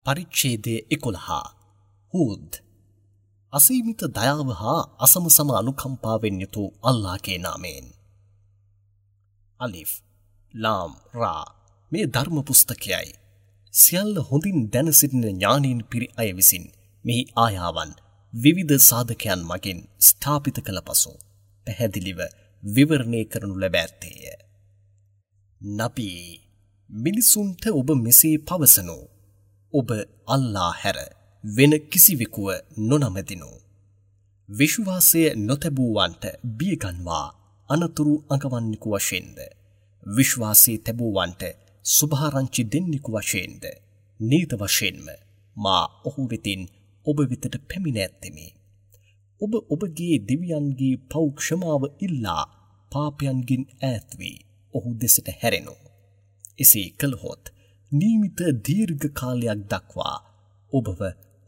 පරිච්ඡේදය 11 හූද් අසීමිත දයාව හා අසමසම අනුකම්පාවෙන් යුතු අල්ලාහගේ නාමයෙන්. අලිෆ් ලාම් රා මේ ධර්ම පුස්තකයයි. සියල්ල හොඳින් දැන සිටින ඥානීන් පිරි අය විසින් මෙහි ආයාවන් විවිධ සාධකයන් මගින් ස්ථාපිත කළ පසු පැහැදිලිව විවරණය කරනු ලැබ ඇත්තේය. නබී මිනිසුන්ට ඔබ මෙසේ පවසනු. ඔබ අල්ලා හැර වෙන කිසිවෙකුව නොනමදිනු. විශ්වාසය නොතැබූවන්ට බියගන්වා අනතුරු අඟවන්නෙකු වශයෙන්ද, විශ්වාසය තැබූවන්ට සුභාරංචි දෙන්නෙකු වශයෙන්ද නීත වශයෙන්ම මා ඔහු වෙතින් ඔබ වෙතට පැමිණ ඇත්තෙමි. ඔබ ඔබගේ දෙවියන්ගේ පව් ක්ෂමාව ඉල්ලා පාපයන්ගෙන් ඈත් වී ඔහු දෙසට හැරෙනු. එසේ කළහොත් නියමිත දීර්ඝ කාලයක් දක්වා ඔබව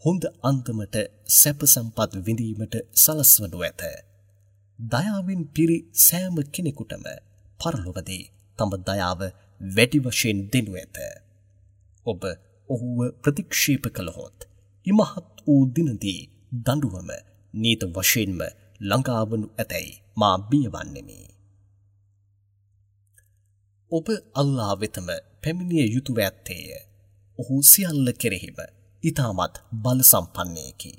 හොඳ අන්දමට සැප සම්පත් විඳීමට සලස්වනු ඇත. දයාවෙන් පිරි සෑම කෙනෙකුටම පරලොවදී තම දයාව වැඩි වශයෙන් දෙනු ඇත. ඔබ ඔහුව ප්‍රතික්ෂේප කළහොත් ඉමහත් වූ දිනදී දඬුවම නීත වශයෙන්ම ළඟාවනු ඇතැයි මා බියවන්නෙමි. ඔබ අල්ලා වෙතම පැමිණිය යුතුව ඇත්තේය. ඔහු සියල්ල කෙරෙහිම ඉතාමත් බල සම්පන්නයෙකි.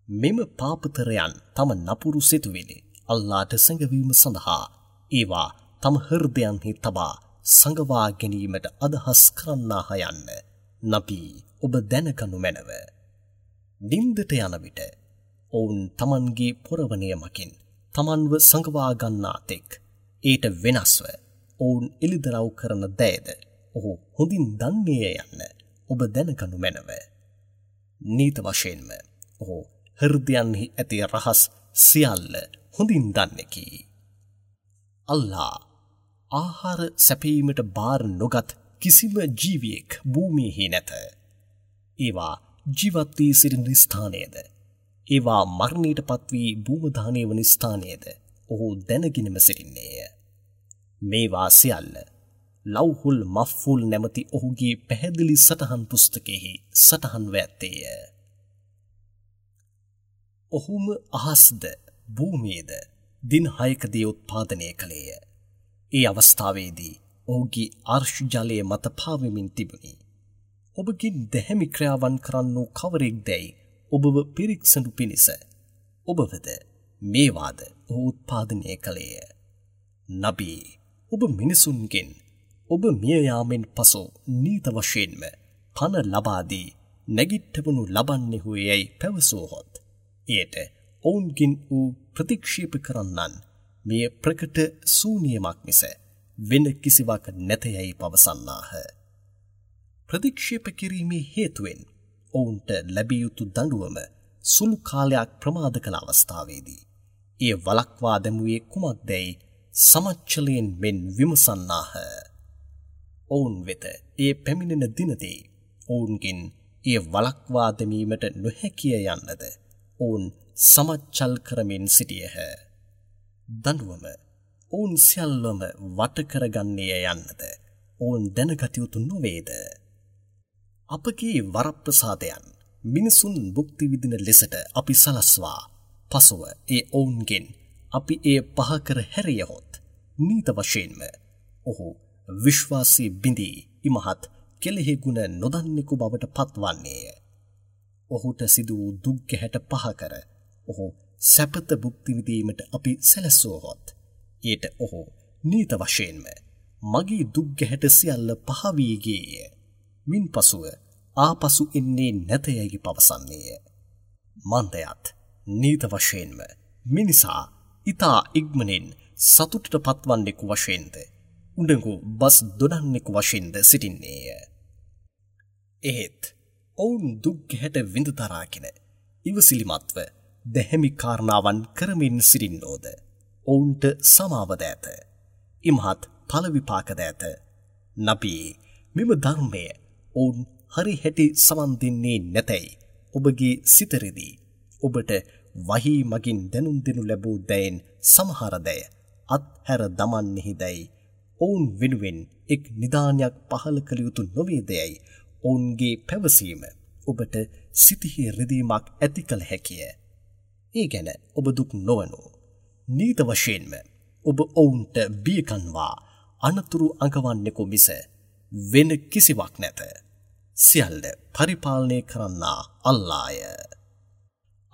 මෙම පාපතරයන් තම නපුරු සිතුවිලි අල්ලාට සැඟවීම සඳහා ඒවා තම හෘදයන්හි තබා සඟවා ගැනීමට අදහස් කරන්නාහ යන්න නබී ඔබ දැනගනු මැනව. නින්දට යන විට ඔවුන් තමන්ගේ පොරවණය මගින් තමන්ව සඟවා ගන්නා තෙක් ඊට වෙනස්ව ඔවුන් එළිදරව් කරන දෑද ඔහු හොඳින් දන්නේය යන්න ඔබ දැනගනු මැනව. නීත වශයෙන්ම ඔහු හෘදයන්හි ඇති රහස් සියල්ල හොඳින් දන්නෙකි. අල්ලා ආහාර සැපයීමට බාර නොගත් කිසිම ජීවියෙක් භූමියෙහි නැත. ඒවා ජීවත් වී සිටින ස්ථානයද, ඒවා මරණයට පත් වී භූමදානය වන ස්ථානයද ඔහු දැනගෙනම සිටින්නේය. මේවා සියල්ල ලව්හුල් මෆ්ෆුල් නැමැති ඔහුගේ පැහැදිලි සටහන් පුස්තකයෙහි සටහන්ව ඇත්තේය. ඔහුම අහස්ද භූමියද දින 6කදී උත්පාදනය කළේය. ඒ අවස්ථාවේදී ඔහුගේ අර්ශ් ජලය මත පාවෙමින් තිබුණි. ඔබගෙන් දැහැමි ක්‍රියාවන් කරන්නෝ කවරෙක් දැයි ඔබව පිරික්සනු පිණිස ඔබවද මේවාද ඔහු උත්පාදනය කළේය. නබී ඔබ මිනිසුන්ගෙන් ඔබ මිය යාමෙන් පසු නීත වශයෙන්ම පණ ලබා දී නැගිට්ටවනු ලබන්නෙහු යැයි පැවසුවහොත් එයට ඔවුන්ගෙන් වූ ප්‍රතික්ෂේප කරන්නන් මෙය ප්‍රකට ශූන්‍යමක් මිස වෙන කිසිවක් නැත යැයි පවසන්නාහ. ප්‍රතික්ෂේප කිරීමේ හේතුවෙන් ඔවුන්ට ලැබිය යුතු දඬුවම සුළු කාලයක් ප්‍රමාද කළ අවස්ථාවේදී එය වළක්වා දැමුවේ කුමක්දැයි සමච්චලයෙන් මෙන් විමසන්නාහ. ඔවුන් වෙත එය පැමිණෙන දිනදී ඔවුන්ගෙන් එය වළක්වා දැමීමට නොහැකිය යන්නද ඔවුන් සමච්චල් කරමින් සිටියහ. දඬුවම ඔවුන් සියල්ලම වට කරගන්නේය යන්නද ඔවුන් දැනගත යුතු නොවේද? අපගේ වරප්‍රසාදයන් මිනිසුන් භුක්ති විඳින ලෙසට අපි සලස්වා පසුව ඒ ඔවුන්ගෙන් අපි එය පහ කර හැරියහොත් නීත වශයෙන්ම ඔහු විශ්වාසී බිඳී ඉමහත් කෙලෙහි ගුණ නොදන්නෙකු බවට පත්වන්නේය. ඔහුට සිදු වූ දුක් ගැහැට පහ කර ඔහු සැපත භුක්ති විඳීමට අපි සැලසුවහොත් ඊට ඔහු නීත වශයෙන්ම මගේ දුක් ගැහැට සියල්ල පහ වී ගියේය. මින් පසුව ආපසු එන්නේ නැත යැයි පවසන්නේය. මන්දයත් නීත වශයෙන්ම මිනිසා ඉතා ඉක්මනින් සතුටට පත්වන්නෙකු වශයෙන්ද උඩඟු බස් දොඩන්නෙකු වශයෙන්ද සිටින්නේය. එහෙත් ඔවුන් දුක් ගැහැට විඳ දරාගෙන ඉවසිලිමත්ව දැහැමි කාරණාවන් කරමින් සිටින්නෝද ඔවුන්ට සමාවද ඇත. ඉමහත් ඵල විපාකද ඇත. නබී මෙම ධර්මය ඔවුන් හරි හැටි සමන් දෙන්නේ නැතැයි ඔබගේ සිත රිදී ඔබට වහී මගින් දැනුම් දෙනු ලැබූ දෑයින් සමහර දෑ අත්හැර දමන්නෙහි දැයි ඔවුන් වෙනුවෙන් එක් නිදානයක් පහළ කළ යුතු නොවේදයයි ඔවුන්ගේ පැවසීම ඔබට සිතෙහි රිදීමක් ඇති කළ හැකිය. ඒ ගැන ඔබ දුක් නොවනු. නීත වශයෙන්ම ඔබ ඔවුන්ට බියකන්වා අනතුරු අඟවන්නෙකු මිස වෙන කිසිවක් නැත. සියල්ල පරිපාලනය කරන්නා අල්ලාය.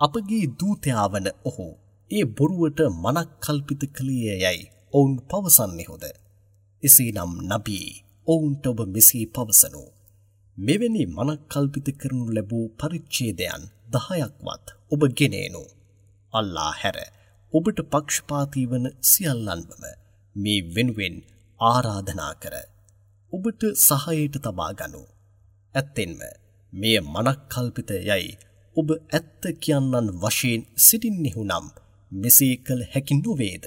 අපගේ දූතයා වන ඔහු ඒ බොරුවට මනක් කල්පිත කළේ යයි ඔවුන් පවසන්නේහුද? එසේනම් නබී ඔවුන්ට ඔබ මෙසේ පවසනු. මෙවැනි මනක් කල්පිත කරනු ලැබූ පරිච්ඡේදයන් 10ක්වත් ඔබ ගෙන එනු. අල්ලා හැර ඔබට පක්ෂපාතී වන සියල්ලන්වම මේ වෙනුවෙන් ආරාධනා කර ඔබට සහායට තබා ගනු. ඇත්තෙන්ම මෙය මනක් කල්පිත යයි ඔබ ඇත්ත කියන්නන් වශයෙන් සිටින්නෙහු නම් මෙසේ කළ හැකි නොවේද?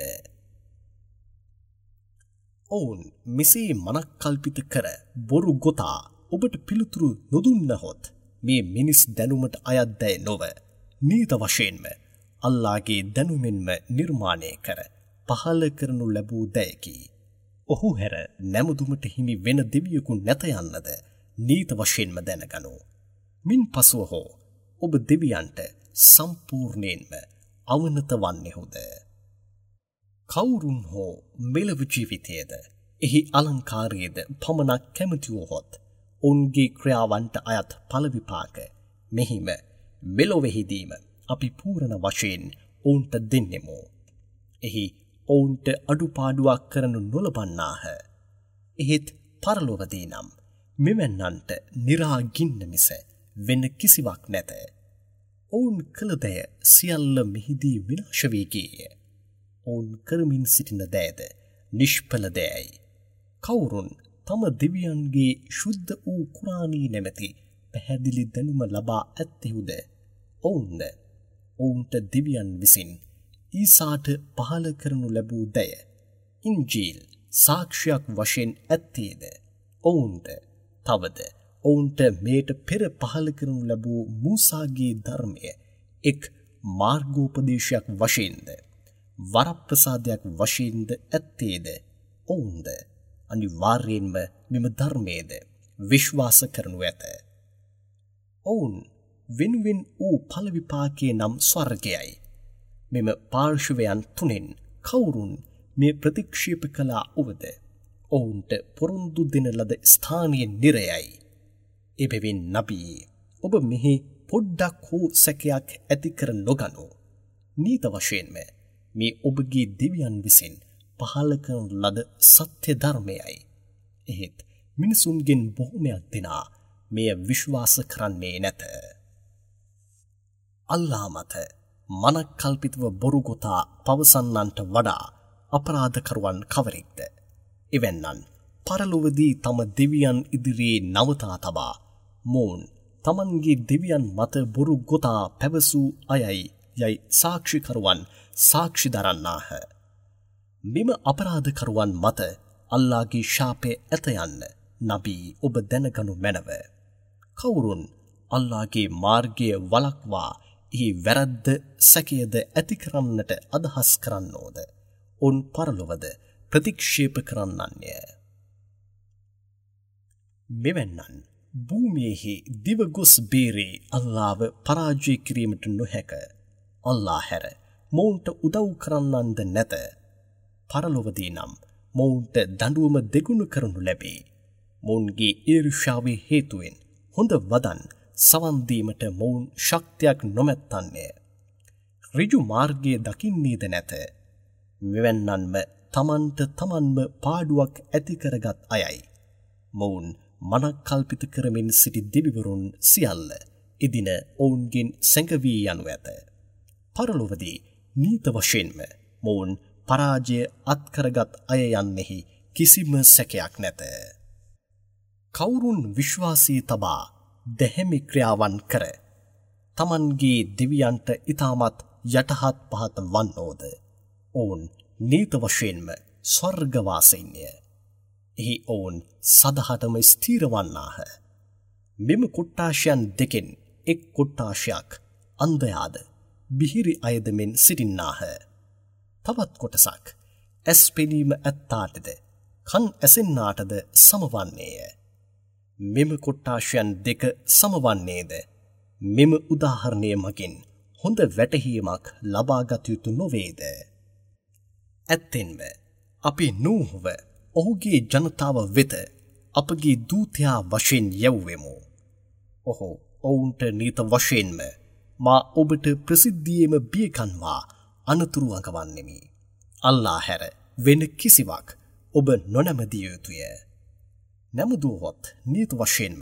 ඔවුන් මෙසේ මනක් කල්පිත කර බොරු ගොතා ඔබට පිළිතුරු නොදුන්නහොත් මේ මිනිස් දැනුමට අයත් දෑ නොව නීත වශයෙන්ම අල්ලාගේ දැනුමෙන්ම නිර්මාණය කර පහළ කරනු ලැබූ දෑකි. ඔහු හැර නැමුදුමට හිමි වෙන දෙවියෙකු නැත යන්නද නීත වශයෙන්ම දැනගනු. මින් පසුව හෝ ඔබ දෙවියන්ට සම්පූර්ණයෙන්ම අවනත වන්නේහුද? කවුරුන් හෝ මෙලොව ජීවිතයේද එහි අලංකාරයේද පමණක් කැමති වූහොත් ඔවුන්ගේ ක්‍රියාවන්ට අයත් ඵල විපාක මෙහිම මෙලොවෙහිදීම අපි පූර්ණ වශයෙන් ඔවුන්ට දෙන්නෙමු. එහි ඔවුන්ට අඩුපාඩුවක් කරනු නොලබන්නාහ. එහෙත් පරලොවදී නම් මෙවැන්නන්ට නිරාගින්න මිස වෙන කිසිවක් නැත. ඔවුන් කළ දෑ සියල්ල මෙහිදී විනාශ වී ගියේය. ඔවුන් කරමින් සිටින දෑද නිෂ්ඵල දෑයි. කවුරුන් තම දෙවියන්ගේ ශුද්ධ වූ කුරානී නැමැති පැහැදිලි දැනුම ලබා ඇත්තෙහුද ඔවුන්ද ඔවුන්ට දෙවියන් විසින් ඊසාට පහළ කරනු ලැබූ දය ඉන්ජීල් සාක්ෂියක් වශයෙන් ඇත්තේද ඔවුන්ද තවද ඔවුන්ට මේට පෙර පහළ කරනු ලැබූ මූසාගේ ධර්මය එක් මාර්ගෝපදේශයක් වශයෙන්ද වරප්‍රසාදයක් වශයෙන්ද ඇත්තේද ඔවුන්ද අනිවාර්යයෙන්ම මෙම ධර්මයේද විශ්වාස කරනු ඇත. ඔවුන් වෙනුවෙන් වූ ඵල විපාකයේ නම් ස්වර්ගයයි. මෙම පාර්ශවයන් තුනෙන් කවුරුන් මේ ප්‍රතික්ෂේප කළා වුවද ඔවුන්ට පොරොන්දු දෙන ලද ස්ථානීය නිරයයි. එබැවින් නබී ඔබ මෙහි පොඩ්ඩක් හෝ සැකයක් ඇති කර නොගනු. නීත වශයෙන්ම මේ ඔබගේ දෙවියන් විසින් පහළ කරන ලද සත්‍ය ධර්මයයි. එහෙත් මිනිසුන්ගෙන් බොහොමයක් දෙනා මෙය විශ්වාස කරන්නේ නැත. අල්ලා මත මනක් කල්පිතව බොරු ගොතා පවසන්නන්ට වඩා අපරාධකරුවන් කවරෙක්ද? එවැන්නන් පරලොවදී තම දෙවියන් ඉදිරියේ නවතා තබා මොවුන් තමන්ගේ දෙවියන් මත බොරු ගොතා පැවසූ අයයි යයි සාක්ෂිකරුවන් සාක්ෂි දරන්නාහ. මෙම අපරාධකරුවන් මත අල්ලාගේ ශාපය ඇත යන්න නබී ඔබ දැනගනු මැනව. කවුරුන් අල්ලාගේ මාර්ගය වළක්වා එහි වැරද්ද සැකයද ඇති කරන්නට අදහස් කරන්නෝද ඔවුන් පරලොවද ප්‍රතික්ෂේප කරන්නන්ය. මෙවැන්නන් භූමියෙහි දිව ගොස් බේරේ අල්ලාව පරාජය කිරීමට නොහැක. අල්ලා හැර මොවුන්ට උදව් කරන්නන්ද නැත. පරලොවදී නම් මොවුන්ට දඬුවම දෙගුණ කරනු ලැබේ. මොවුන්ගේ ඊර්ෂ්‍යාවේ හේතුවෙන් හොඳ වදන් සවන් දීමට මොවුන් ශක්තියක් නොමැත්තන්ය. ඍජු මාර්ගය දකින්නේද නැත. මෙවැන්නන්ම තමන්ට තමන්ම පාඩුවක් ඇති කරගත් අයයි. මොවුන් මනක් කල්පිත කරමින් සිටි දෙවිවරුන් සියල්ල එදින ඔවුන්ගෙන් සැඟවී යනු ඇත. පරලොවදී නීත වශයෙන්ම මොවුන් පරාජය අත්කරගත් අය යන්නෙහි කිසිම සැකයක් නැත. කවුරුන් විශ්වාසී තබා දැහැමි ක්‍රියාවන් කර තමන්ගේ දෙවියන්ට ඉතාමත් යටහත් පහත් වන්නෝද ඔවුන් නීත වශයෙන්ම ස්වර්ගවාසීන්ය. එහි ඔවුන් සදහටම ස්ථිර වන්නාහ. මෙම කොට්ටාශයන් දෙකෙන් එක් කොට්ටාශයක් අන්ධයාද බිහිරි අයද මෙන් සිටින්නාහ. තවත් කොටසක් ඇස් පෙනීම ඇත්තාටද කන් ඇසෙන්නාටද සමවන්නේය. මෙම කොට්ටාශයන් දෙක සමවන්නේද මෙම උදාහරණය මගින් හොඳ වැටහීමක් ලබාගත යුතු නොවේද? ඇත්තෙන්ම අපි නූහ්ව ඔහුගේ ජනතාව වෙත අපගේ දූතයා වශයෙන් යැව්වෙමු. ඔහු ඔවුන්ට නීත වශයෙන්ම මා ඔබට ප්‍රසිද්ධියේම බියකන්වා අනතුරු අඟවන්නෙමි. අල්ලා හැර වෙන කිසිවක් ඔබ නොනැමදිය යුතුය. නැමදුවහොත් නීත වශයෙන්ම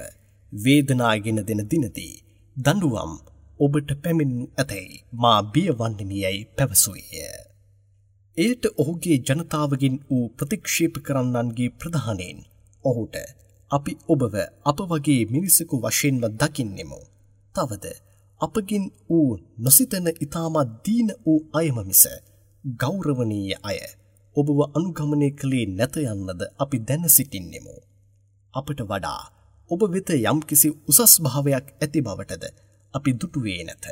වේදනාගෙන දෙන දිනදී දඬුවම් ඔබට පැමිණෙනු ඇතැයි මා බිය වන්නෙමි යැයි පැවසුවේය. එයට ඔහුගේ ජනතාවගෙන් වූ ප්‍රතික්ෂේප කරන්නන්ගේ ප්‍රධානීන් ඔහුට අපි ඔබව අප වගේ මිනිසෙකු වශයෙන්ම දකින්නෙමු. තවද අපගෙන් වූ නොසිතන ඉතාමත් දීන වූ අයම මිස ගෞරවනීය අය ඔබව අනුගමනය කළේ නැත යන්නද අපි දැන සිටින්නෙමු. අපට වඩා ඔබ වෙත යම්කිසි උසස් භාවයක් ඇති බවටද අපි දුටුවේ නැත.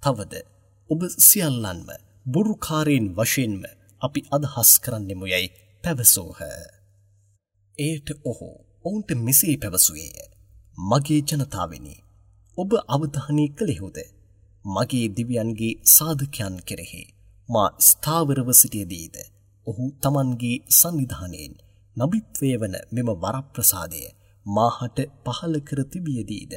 තවද ඔබ සියල්ලන්ම බොරුකාරයින් වශයෙන්ම අපි අදහස් කරන්නෙමු යැයි පැවසූහ. එයට ඔහු ඔවුන්ට මෙසේ පැවසුවේය. මගේ ජනතාවෙනි, ඔබ අවධානය කළෙහුද? මගේ දිව්‍යයන්ගේ සාධකයන් කෙරෙහි මා ස්ථාවරව සිටියදීද ඔහු තමන්ගේ සන්නිධානයෙන් නබිත්වය වන මෙම වරප්‍රසාදය මාහට පහළ කර තිබියදීද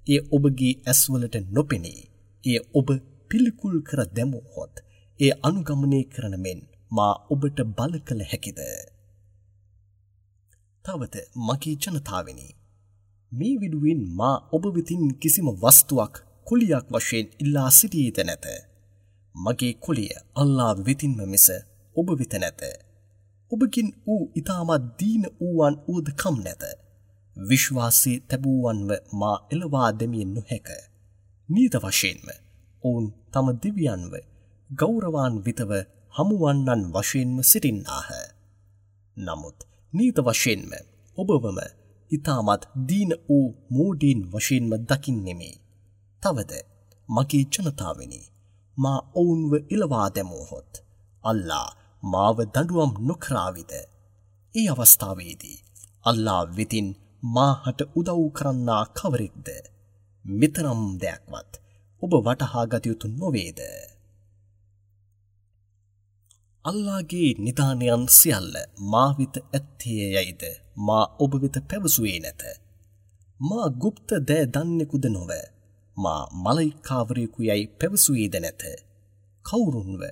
එය ඔබගේ ඇස්වලට නොපෙනී එය ඔබ පිළිකුල් කර දැමුවහොත් එය අනුගමනය කරන මෙන් මා ඔබට බල කළ හැකිද? තවද මගේ ජනතාවෙනි, මේ විඩුවෙන් මා ඔබ වෙතින් කිසිම වස්තුවක් කුලියක් වශයෙන් ඉල්ලා සිටියේද නැත. මගේ කුලිය අල්ලා වෙතින්ම මිස ඔබ වෙත නැත. ඔබකින් වූ ඉතාමත් දීන වූවන් වුවද කම් නැත. විශ්වාසයේ තැබූවන්ව මා එළවා දැමිය නොහැක. නීත වශයෙන්ම ඔවුන් තම දෙවියන්ව ගෞරවාන්විතව හමුවන්නන් වශයෙන්ම සිටින්නාහ. නමුත් නීත වශයෙන්ම ඔබවම ඉතාමත් දීන වූ මෝඩීන් වශයෙන්ම දකින්නෙමි. තවද මගේ ජනතාවෙනි, මා ඔවුන්ව එළවා දැමුවහොත් අල්ලා මාව දඬුවම් නොකරාවිද? ඒ අවස්ථාවේදී අල්ලා වෙතින් මාහට උදව් කරන්නා කවරෙක්ද? මෙතරම් දෙයක්වත් ඔබ වටහා ගත යුතු නොවේද? අල්ලාගේ නිදානයන් සියල්ල මා වෙත ඇත්තේ යයිද මා ඔබ වෙත පැවසුවේ නැත. මා ගුප්ත දෑ දන්නෙකුද නොව, මා මලයිකාවරයෙකු යයි පැවසුවේද නැත. කවුරුන්ව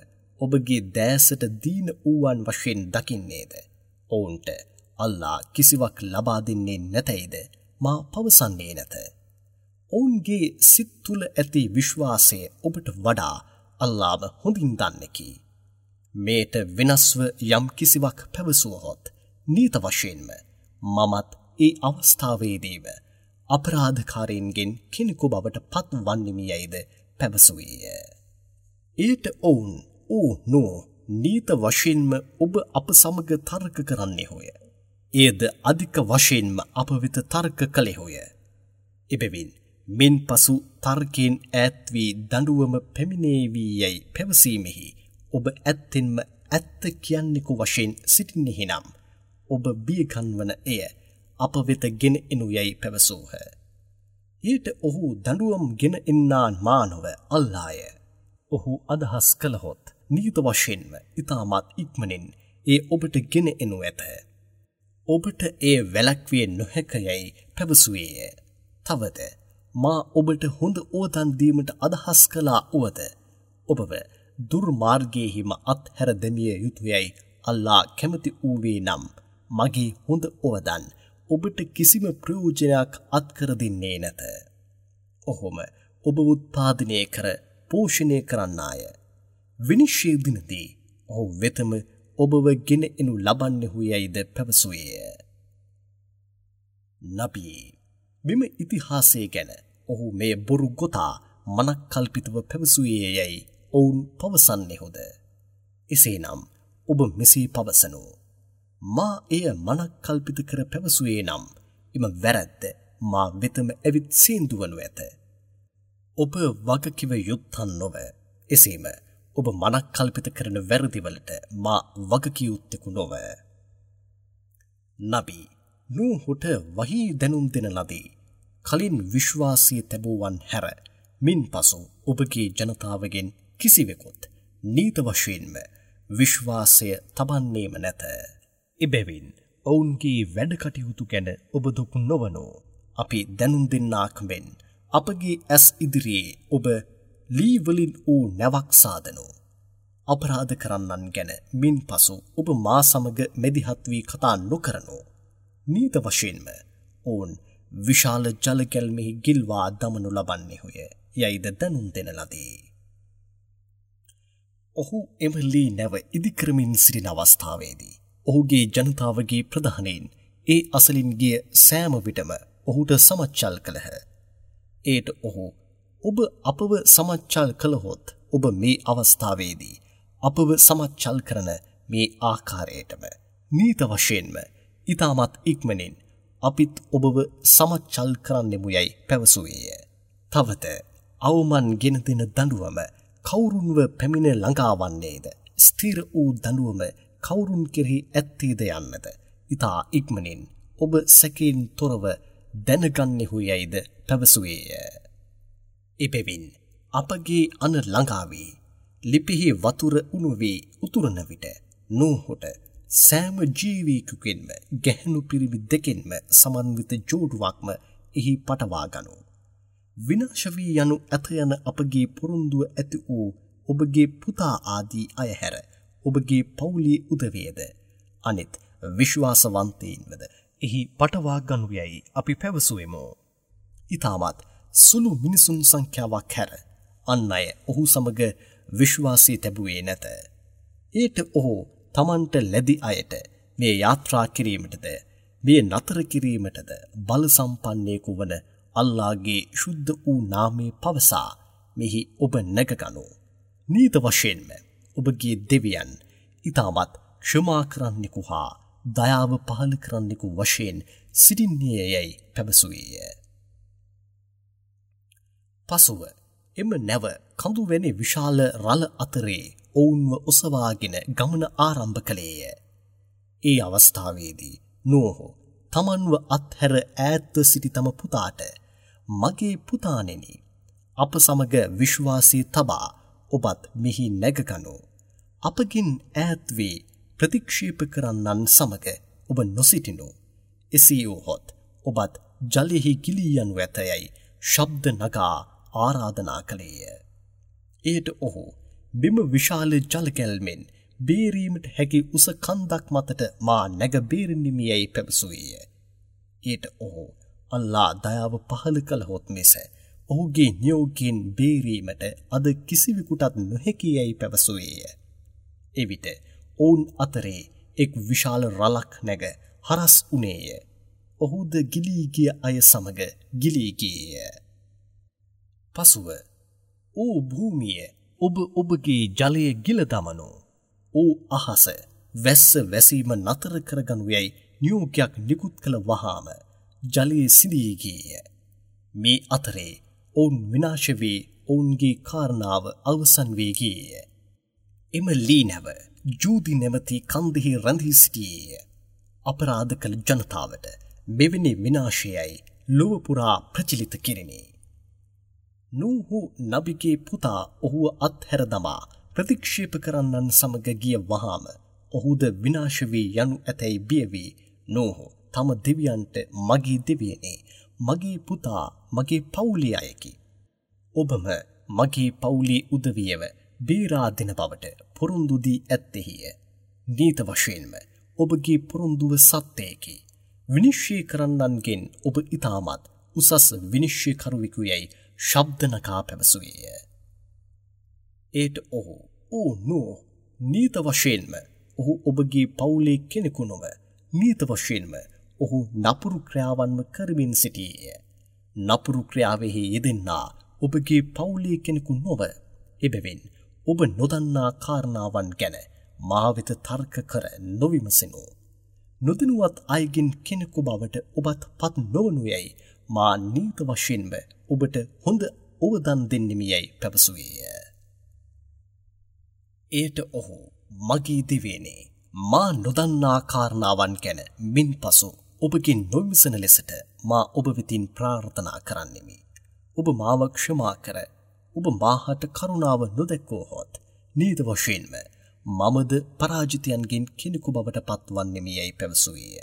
ඔබගේ දෑසට දීන වූවන් වශයෙන් දකින්නේද? ඔවුන්ට අල්ලා කිසිවක් ලබා දෙන්නේ නැතැයිද මා පවසන්නේ නැත. ඔවුන්ගේ සිත් තුළ ඇති විශ්වාසය ඔබට වඩා අල්ලාම හොඳින් දන්නෙකි. මේට වෙනස්ව යම් කිසිවක් පැවසුවහොත් නීත වශයෙන්ම මමත් ඒ අවස්ථාවේදීම අපරාධකාරීන්ගෙන් කෙනෙකු බවට පත් වන්නෙමි යයිද පැවසුවේය. එයට ඔවුන් ඕ නෝ, නීත වශයෙන්ම ඔබ අප සමග තර්ක කරන්නෙහුය. එයද අධික වශයෙන්ම අප වෙත තර්ක කළෙහුය. එබැවින් මින් පසු තර්කයෙන් ඈත් වී දඬුවම පැමිණේවි යයි පැවසීමෙහි ඔබ ඇත්තෙන්ම ඇත්ත කියන්නෙකු වශයෙන් සිටින්නෙහි නම් ඔබ බියගන්වන එය අප වෙත ගෙන එනු යයි පැවසූහ. ඊට ඔහු දඬුවම් ගෙන එන්නා මා නොව අල්ලාය. ඔහු අදහස් කළහොත් නීත වශයෙන්ම ඉතාමත් ඉක්මනින් ඒ ඔබට ගෙන එනු ඇත. ඔබට එය වැළැක්විය නොහැක යයි පැවසුවේය. තවද මා ඔබට හොඳ ඕතන් දීමට අදහස් කළා වුවද ඔබව දුර්මාර්ගයේහිම අත්හැර දැමිය යුතුයයි අල්ලා කැමති වූවේ නම් මගේ හොඳ ඕවදන් ඔබට කිසිම ප්‍රයෝජනයක් අත්කර දෙන්නේ නැත. ඔහොම ඔබ උත්පාදනය කර පෝෂණය කරන්නාය. විනිශ්චය දිනදී ඔහු වෙතම ඔබව ගෙන එනු ලබන්නෙහු යයිද පැවසුවේය. නබී, මෙම ඉතිහාසය ගැන ඔහු මේ බොරු ගොතා මනක්කල්පිතව පැවසුවේ යැයි ඔවුන් පවසන්නෙහුද? එසේනම් ඔබ මෙසේ පවසනු. මා එය මනක්කල්පිත කර පැවසුවේ නම් එම වැරැද්ද මා වෙතම ඇවිත් සීන්දු වනු ඇත. ඔබ වගකිව යුත්තන් නොව. එසේම ඔබ මනක්කල්පිත කරන වැරදිවලට මා වගකිය යුත්තෙකු නොව. නබී, නූහුට වහී දැනුම් දෙන ලදී. කලින් විශ්වාසය තැබුවන් හැර මින්පසු ඔබගේ ජනතාවගෙන් කිසිවෙකුත් නීත වශයෙන්ම විශ්වාසය තබන්නේම නැත. එබැවින් ඔවුන්ගේ වැඩ කටයුතු ගැන ඔබ දුක් නොවනු. අපි දැනුම් දෙන්නාක් මෙන් අපගේ ඇස් ඉදිරියේ ඔබ ලී වලින් වූ නැවක් සාදනු. අපරාධ කරන්නන් ගැන මින්පසු ඔබ මා සමග මැදිහත් වී කතා නොකරනු. නීත වශයෙන්ම ඔවුන් විශාල ජල ගැල්මෙහි ගිල්වා දමනු ලබන්නේහුය යයිද දැනුම් දෙන ලදී. ඔහු එම ලී නැව ඉදිකරමින් සිටින අවස්ථාවේදී ඔහුගේ ජනතාවගේ ප්‍රධානීන් ඒ අසලින් ගිය සෑම විටම ඔහුට සමච්චල් කළහ. ඒට ඔහු ඔබ අපව සමච්චල් කළහොත් ඔබ මේ අවස්ථාවේදී අපව සමච්චල් කරන මේ ආකාරයටම නීත වශයෙන්ම ඉතාමත් ඉක්මනින් අපිත් ඔබව සමච්චල් කරන්නෙමු යයි පැවසුවේය. තවද අවමන් ගෙන දෙන දඬුවම කවුරුන්ව පැමිණ ළඟාවන්නේද, ස්ථිර වූ දඬුවම කවුරුන් කෙරෙහි ඇත්තේද යන්නද ඉතා ඉක්මනින් ඔබ සැකයෙන් තොරව දැනගන්නෙහු යයිද පැවසුවේය. එබැවින් අපගේ අන ළඟා වී ලිපිහි වතුර උණු වී උතුරන විට නූහුට සෑම ජීවියෙකුගෙන්ම ගැහැණු පිරිමි දෙකෙන්ම සමන්විත ජෝඩුවක්ම එහි පටවා ගනු. විනාශ වී යනු ඇත යන අපගේ පොරොන්දුව ඇති වූ ඔබගේ පුතා ආදී අය හැර ඔබගේ පවුලේ උදවියද අනිත් විශ්වාසවන්තයින්වද එහි පටවා ගනු යයි අපි පැවසුවෙමු. ඉතාමත් සුළු මිනිසුන් සංඛ්‍යාවක් හැර අන් අය ඔහු සමග විශ්වාසය තැබුවේ නැත. ඒට ඔහු තමන්ට ලැබි අයට මේ යාත්‍රා කිරීමටද මේ නතර කිරීමටද බල සම්පන්නයෙකු වන අල්ලාහගේ ශුද්ධ වූ නාමය පවසා මෙහි ඔබ නැගගනු. නීත වශයෙන්ම ඔබගේ දෙවියන් ඉතාමත් ක්ෂමා කරන්නෙකු හා දයාව පහළ කරන්නෙකු වශයෙන් සිටින්නේ යයි පැවසුවේය. පසුව එම නැව කඳු වැනි විශාල රළ අතරේ ඔවුන්ව ඔසවාගෙන ගමන ආරම්භ කළේය. ඒ අවස්ථාවේදී නෝහ තමන්ව අත්හැර ඈත්ව සිටි තම පුතාට, මගේ පුතාණෙනි, අප සමග විශ්වාසය තබා ඔබත් මෙහි නැගගනු. අපගෙන් ඈත් වී ප්‍රතික්ෂේප කරන්නන් සමග ඔබ නොසිටිනු. එසේ වුවහොත් ඔබත් ජලයෙහි ගිලී යනු ඇතයයි ශබ්ද නගා ආරාධනා කළේය. එයට ඔහු මෙම විශාල ජල ගැල්මෙන් බේරීමට හැකි උස කන්දක් මතට මා නැග බේරෙන්නෙමි යයි පැවසුවේය. එයට ඔහු අල්ලා දයාව පහළ කළහොත් මිස ඔහුගේ නියෝගයෙන් බේරීමට අද කිසිවෙකුටත් නොහැකි යයි පැවසුවේය. එවිට ඔවුන් අතරේ එක් විශාල රළක් නැග හරස් වුණේය. ඔහුද ගිලී ගිය අය සමග ගිලී ගියේය. පසුව ඕ භූමිය, ඔබ ඔබගේ ජලය ගිල දමනු. ඕ අහස, වැස්ස වැසීම නතර කරගනු යයි නියෝගයක් නිකුත් කළ වහාම ජලය සිඳී ගියේය. මේ අතරේ ඔවුන් විනාශ වී ඔවුන්ගේ කාරණාව අවසන් වී ගියේය. එම ලී නැව ජූදි නැමැති කන්දෙහි රැඳී සිටියේය. අපරාධ කළ ජනතාවට මෙවැනි විනාශයයි ලොව පුරා ප්‍රචලිත කෙරිණි. නූහු නබිගේ පුතා ඔහුව අත්හැර දමා ප්‍රතික්ෂේප කරන්නන් සමග ගිය වහාම ඔහුද විනාශ වී යනු ඇතැයි බිය වී නූහු තම දෙවියන්ට, මගේ දෙවියනේ, මගේ පුතා මගේ පවුලේ අයකි. ඔබම මගේ පවුලේ උදවියව බේරා දෙන බවට පොරොන්දු දී ඇත්තෙහිය. නීත වශයෙන්ම ඔබගේ පොරොන්දුව සත්‍යයකි. විනිශ්චය කරන්නන්ගෙන් ඔබ ඉතාමත් උසස් විනිශ්චයකරුවෙකු යැයි ශබ්ද නගා පැවසුවේය. ඒට ඔහු, ඕ නෝ, නීත වශයෙන්ම ඔහු ඔබගේ පවුලේ කෙනෙකු නොව, නීත වශයෙන්ම ඔහු නපුරු ක්‍රියාවන්ම කරමින් සිටියේය. නපුරු ක්‍රියාවෙහි යෙදෙන්නා ඔබගේ පවුලේ කෙනෙකු නොව, එබැවින් ඔබ නොදන්නා කාරණාවන් ගැන මා වෙත තර්ක කර නොවිමසනු. නොදැනුවත් අයගෙන් කෙනෙකු බවට ඔබත් පත් නොවනු යැයි මා නීත වශයෙන්ම ඔබට හොඳ ඔවදන් දෙන්නෙමි යැයි පැවසුවේය. එයට ඔහු, මගේ දෙවියනේ, මා නොදන්නා කාරණාවන් ගැන මින්පසු ඔබගෙන් නොවිමසන ලෙසට මා ඔබ වෙතින් ප්‍රාර්ථනා කරන්නෙමි. ඔබ මාව ක්ෂමා කර ඔබ මාහට කරුණාව නොදැක්වුවහොත් නීත වශයෙන්ම මමද පරාජිතයන්ගෙන් කෙනෙකු බවට පත්වන්නෙමි යයි පැවසුවේය.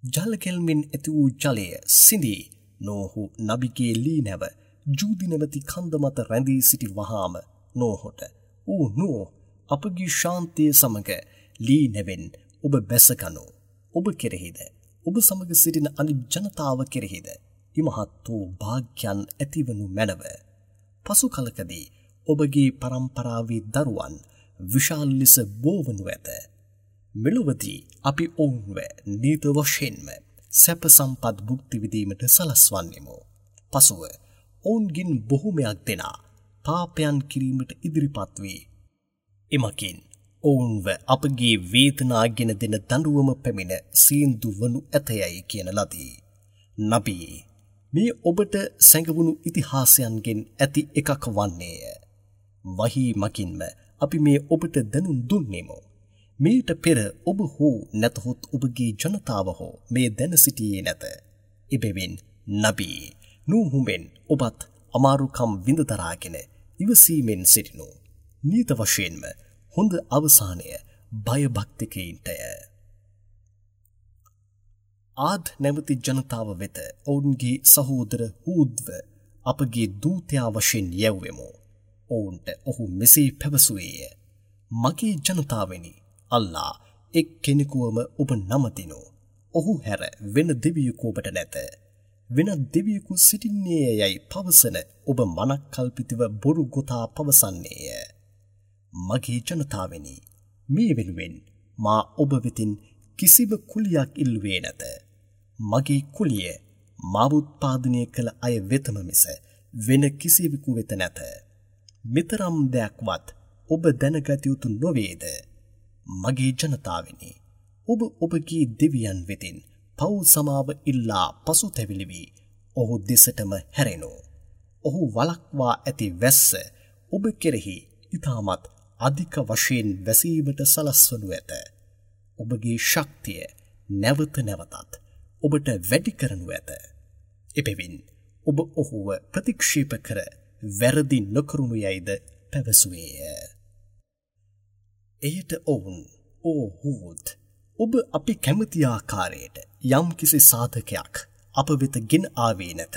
ජල කෙල්මෙන් ඇති වූ ජලය සිඳී නෝහු නබිගේ ලී නැව ජූදි නැමැති කන්ද මත රැඳී සිටි වහාම නෝහොට, "ඕ නෝහ්, අපගේ ශාන්තිය සමග ලී නැවෙන් ඔබ බැසගනු. ඔබ කෙරෙහිද ඔබ සමග සිටින අනිත් ජනතාව කෙරෙහිද ඉමහත් වූ භාග්‍යයන් ඇතිවනු මැනව. පසු කලකදී ඔබගේ පරම්පරාවේ දරුවන් විශාල ලෙස බෝවනු ඇත. මෙලොවදී අපි ඔවුන්ව නීත වශයෙන්ම සැප සම්පත් භුක්ති විඳීමට සලස්වන්නෙමු. පසුව ඔවුන්ගෙන් බොහොමයක් දෙනා පාපයන් කිරීමට ඉදිරිපත් වී එමකින් ඔවුන්ව අපගේ වේදනා ගෙන දෙන දඬුවම පැමිණ සීන්දු වනු ඇතයයි කියන ලදී. නබී, මේ ඔබට සැඟවුණු ඉතිහාසයන්ගෙන් ඇති එකක් වන්නේය. වහී මකින්ම අපි මේ ඔබට දැනුම් දුන්නෙමු. මීට පෙර ඔබ හෝ නැතහොත් ඔබගේ ජනතාව හෝ මේ දැන සිටියේ නැත. එබැවින් නබී, නූහුමෙන් ඔබත් අමාරුකම් විඳ දරාගෙන ඉවසීමෙන් සිටිනු. නීත වශයෙන්ම හොඳ අවසානය භයභක්තිකයින්ටය. ආද් නැමැති ජනතාව වෙත ඔවුන්ගේ සහෝදර හූද්ව අපගේ දූතයා වශයෙන් යැව්වෙමු. ඔවුන්ට ඔහු මෙසේ පැවසුවේය. මගේ ජනතාවනි, අල්ලා එක් කෙනෙකුවම ඔබ නමදිනු. ඔහු හැර වෙන දෙවියෙකු ඔබට නැත. වෙනත් දෙවියෙකු සිටින්නේ යයි පවසන ඔබ මනක්කල්පිතව බොරු ගොතා පවසන්නේය. මගේ ජනතාවනි, මේ වෙනුවෙන් මා ඔබ වෙතින් කිසිම කුලියක් ඉල්ලුවේ නැත. මගේ කුලිය මාව උත්පාදනය කළ අය වෙතම මිස වෙන කිසිවෙකු වෙත නැත. මෙතරම් දෙයක්වත් ඔබ දැනගත යුතු නොවේද? මගේ ජනතාවනි, ඔබ ඔබගේ දෙවියන් වෙතින් පව් සමාව ඉල්ලා පසුතැවිලි වී ඔහු දෙසටම හැරෙනු. ඔහු වළක්වා ඇති වැස්ස ඔබ කෙරෙහි ඉතාමත් අධික වශයෙන් වැසීමට සලස්වනු ඇත. ඔබගේ ශක්තිය නැවත නැවතත් ඔබට වැඩි කරනු ඇත. එබැවින් ඔබ ඔහුව ප්‍රතික්ෂේප කර වැරදි නොකරනු යයිද පැවසුවේය. එයට ඔවුන්, "ඕ හූද්, ඔබ අපි කැමති ආකාරයට යම්කිසි සාධකයක් අප වෙත ගෙන ආවේ නැත.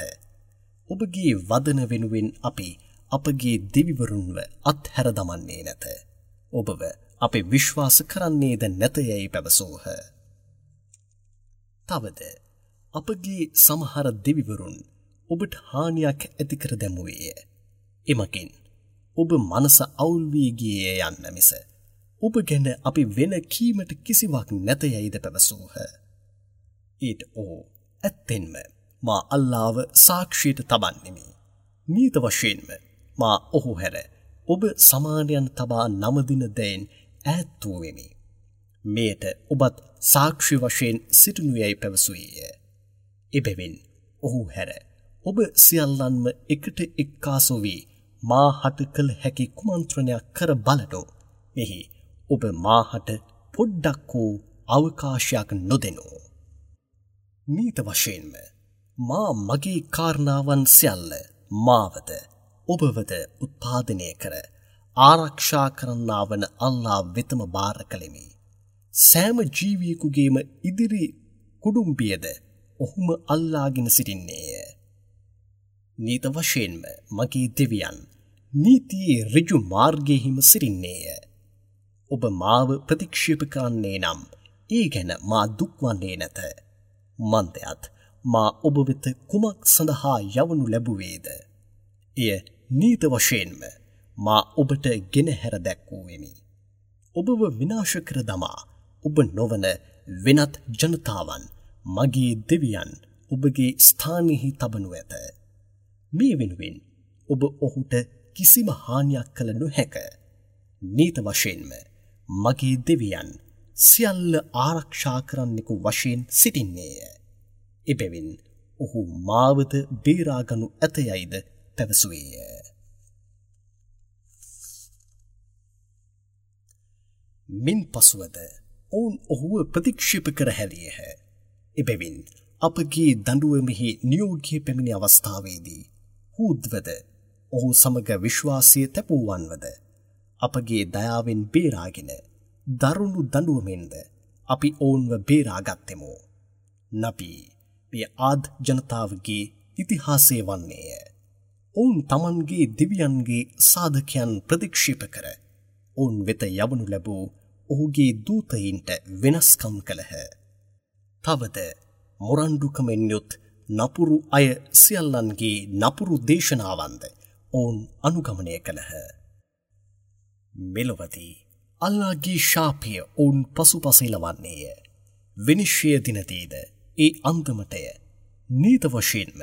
ඔබගේ වදන වෙනුවෙන් අපි අපගේ දෙවිවරුන්ව අත්හැර දමන්නේ නැත. ඔබව අපි විශ්වාස කරන්නේද නැත යැයි පැවසූහ. තවද අපගේ සමහර දෙවිවරුන් ඔබට හානියක් ඇති කර දැමුවේය. එමකින් ඔබ මනස අවුල් වී ගියේය යන්න මිස ඔබ ගැන අපි වෙන කීමට කිසිවක් නැත යැයිද පැවසූහ. ඊට ඔහු, "ඇත්තෙන්ම මා අල්ලාව සාක්ෂියට තබන්නෙමි. නීත වශයෙන්ම මා ඔහු හැර ඔබ සමානයන් තබා නමදින දෙයින් ඈත් වූ වෙමි. මෙයට ඔබත් සාක්ෂි වශයෙන් සිටිනු යැයි පැවසුවේය. එබැවින් ඔහු හැර ඔබ සියල්ලන්ම එකට එක්කාසු වී මා හට කළ හැකි කුමන්ත්‍රණයක් කර බලනු. මෙහි ඔබ මා හට පොඩ්ඩක් හෝ අවකාශයක් නොදෙනු. නීත වශයෙන්ම මා මගේ කාරණාවන් සියල්ල මාවද ඔබවද උත්පාදනය කර ආරක්ෂා කරන්නා වන අල්ලා වෙතම භාර කළෙමි. සෑම ජීවියෙකුගේම ඉදිරි කුඩුම්බියද ඔහුම අල්ලාගෙන සිටින්නේය. නීත වශයෙන්ම මගේ දෙවියන් නීතියේ ඍජු මාර්ගයෙහිම සිටින්නේය. ඔබ මාව ප්‍රතික්ෂේප කරන්නේ නම් ඒ ගැන මා දුක් වන්නේ නැත. මන්දයත් මා ඔබ වෙත කුමක් සඳහා යවනු ලැබුවේද? එය නීත වශයෙන්ම මා ඔබට ගෙනහැර දැක්වූවෙමි. ඔබව විනාශ කර දමා ඔබ නොවන වෙනත් ජනතාවන් මගේ දෙවියන් ඔබගේ ස්ථානයෙහි තබනු ඇත. මේ වෙනුවෙන් ඔබ ඔහුට කිසිම හානියක් කළ නොහැක. නීත වශයෙන්ම මගේ දෙවියන් සියල්ල ආරක්ෂා කරන්නෙකු වශයෙන් සිටින්නේය. එබැවින් ඔහු මාවද බේරාගනු ඇත යයිද පැවසුවේය. මින් පසුවද ඔවුන් ඔහුව ප්‍රතික්ෂේප කර හැරියහ. එබැවින් අපගේ දඬුවමෙහි නියෝගය පැමිණි අවස්ථාවේදී හූද්වද ඔහු සමග විශ්වාසය තැබූවන්වද අපගේ දයාවෙන් බේරාගෙන දරුණු දඬුවමෙන්ද අපි ඔවුන්ව බේරාගත්තෙමු. නබී, මෙය ආද් ජනතාවගේ ඉතිහාසය වන්නේය. ඔවුන් තමන්ගේ දෙවියන්ගේ සාධකයන් ප්‍රතික්ෂේප කර ඔවුන් වෙත යවනු ලැබූ ඔහුගේ දූතයින්ට වෙනස්කම් කළහ. තවද මොරණ්ඩුකමෙන් යුත් නපුරු අය සියල්ලන්ගේ නපුරු දේශනාවන්ද ඔවුන් අනුගමනය කළහ. මෙලොවදී අල්ලාහ්ගේ ශාපය ඔවුන් පසුපස එළවන්නේය. විනිශ්චය දිනදීද ඒ අන්දමටය. නීත වශයෙන්ම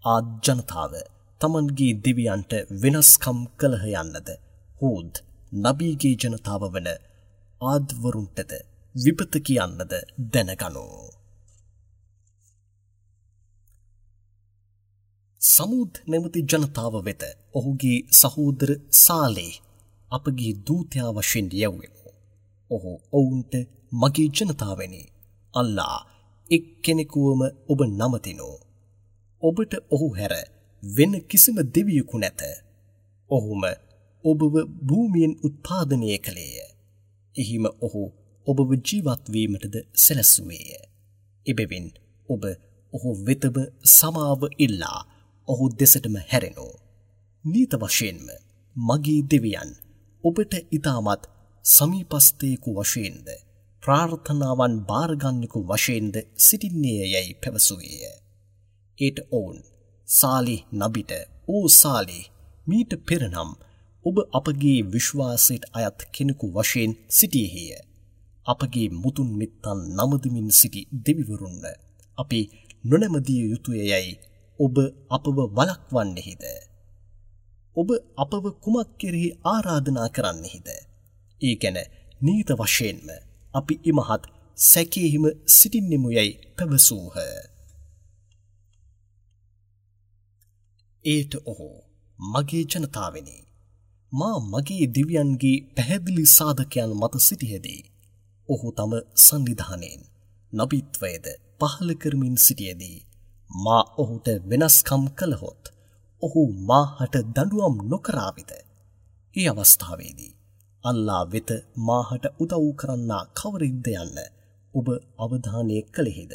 ආද් ජනතාව තමන්ගේ දෙවියන්ට වෙනස්කම් කළහ යන්නද හූද් නබීගේ ජනතාව වන ආද්වරුන්ටද විපත කියන්නද දැනගනු. සමූද් නැමැති ජනතාව වෙත ඔහුගේ සහෝදර සාලේහ් අපගේ දූතයා වශයෙන් යැව්වෙමු. ඔහු ඔවුන්ට මගේ ජනතාවනි, අල්ලා එක්කෙනෙකුවම ඔබ නමතිනු. ඔබට ඔහු හැර වෙන කිසිම දෙවියෙකු නැත. ඔහුම ඔබව භූමියෙන් උත්පාදනය කළේය. එහිම ඔහු ඔබව ජීවත් වීමටද සැලැස්සුවේය. එබැවින් ඔබ ඔහු වෙතම සමාව ඉල්ලා ඔහු දෙසටම හැරෙනු. නීත වශයෙන්ම මගේ දෙවියන් ඔබට ඉතාමත් සමීපස්ථයෙකු වශයෙන්ද ප්‍රාර්ථනාවන් භාරගන්නෙකු වශයෙන්ද සිටින්නේය යැයි පැවසුවේය. ඒට ඔවුන් සාලිහ් නබිට, ඕ සාලිහ්, මීට පෙර නම් ඔබ අපගේ විශ්වාසයට අයත් කෙනෙකු වශයෙන් සිටියේය. අපගේ මුතුන් මිත්තන් නමදමින් සිටි දෙවිවරුන්ව අපි නොනැමදිය යුතුය යැයි ඔබ අපව වළක්වන්නෙහිද? ඔබ අපව කුමක් කෙරෙහි ආරාධනා කරන්නෙහිද? ඒ ගැන නීත වශයෙන්ම අපි ඉමහත් සැකයෙහිම සිටින්නෙමු යැයි පැවසූහ. ඒට ඔහු, මගේ ජනතාවනි, මා මගේ දෙවියන්ගේ පැහැදිලි සාධකයන් මත සිටියදී ඔහු තම සන්නිධානයෙන් නබිත්වයද පහළ කරමින් සිටියදී මා ඔහුට වෙනස්කම් කළහොත් ඔහු මාහට දඬුවම් නොකරාවිද? ඒ අවස්ථාවේදී අල්ලා වෙත මාහට උදව් කරන්නා කවරෙක්ද යන්න ඔබ අවධානය කළෙහිද?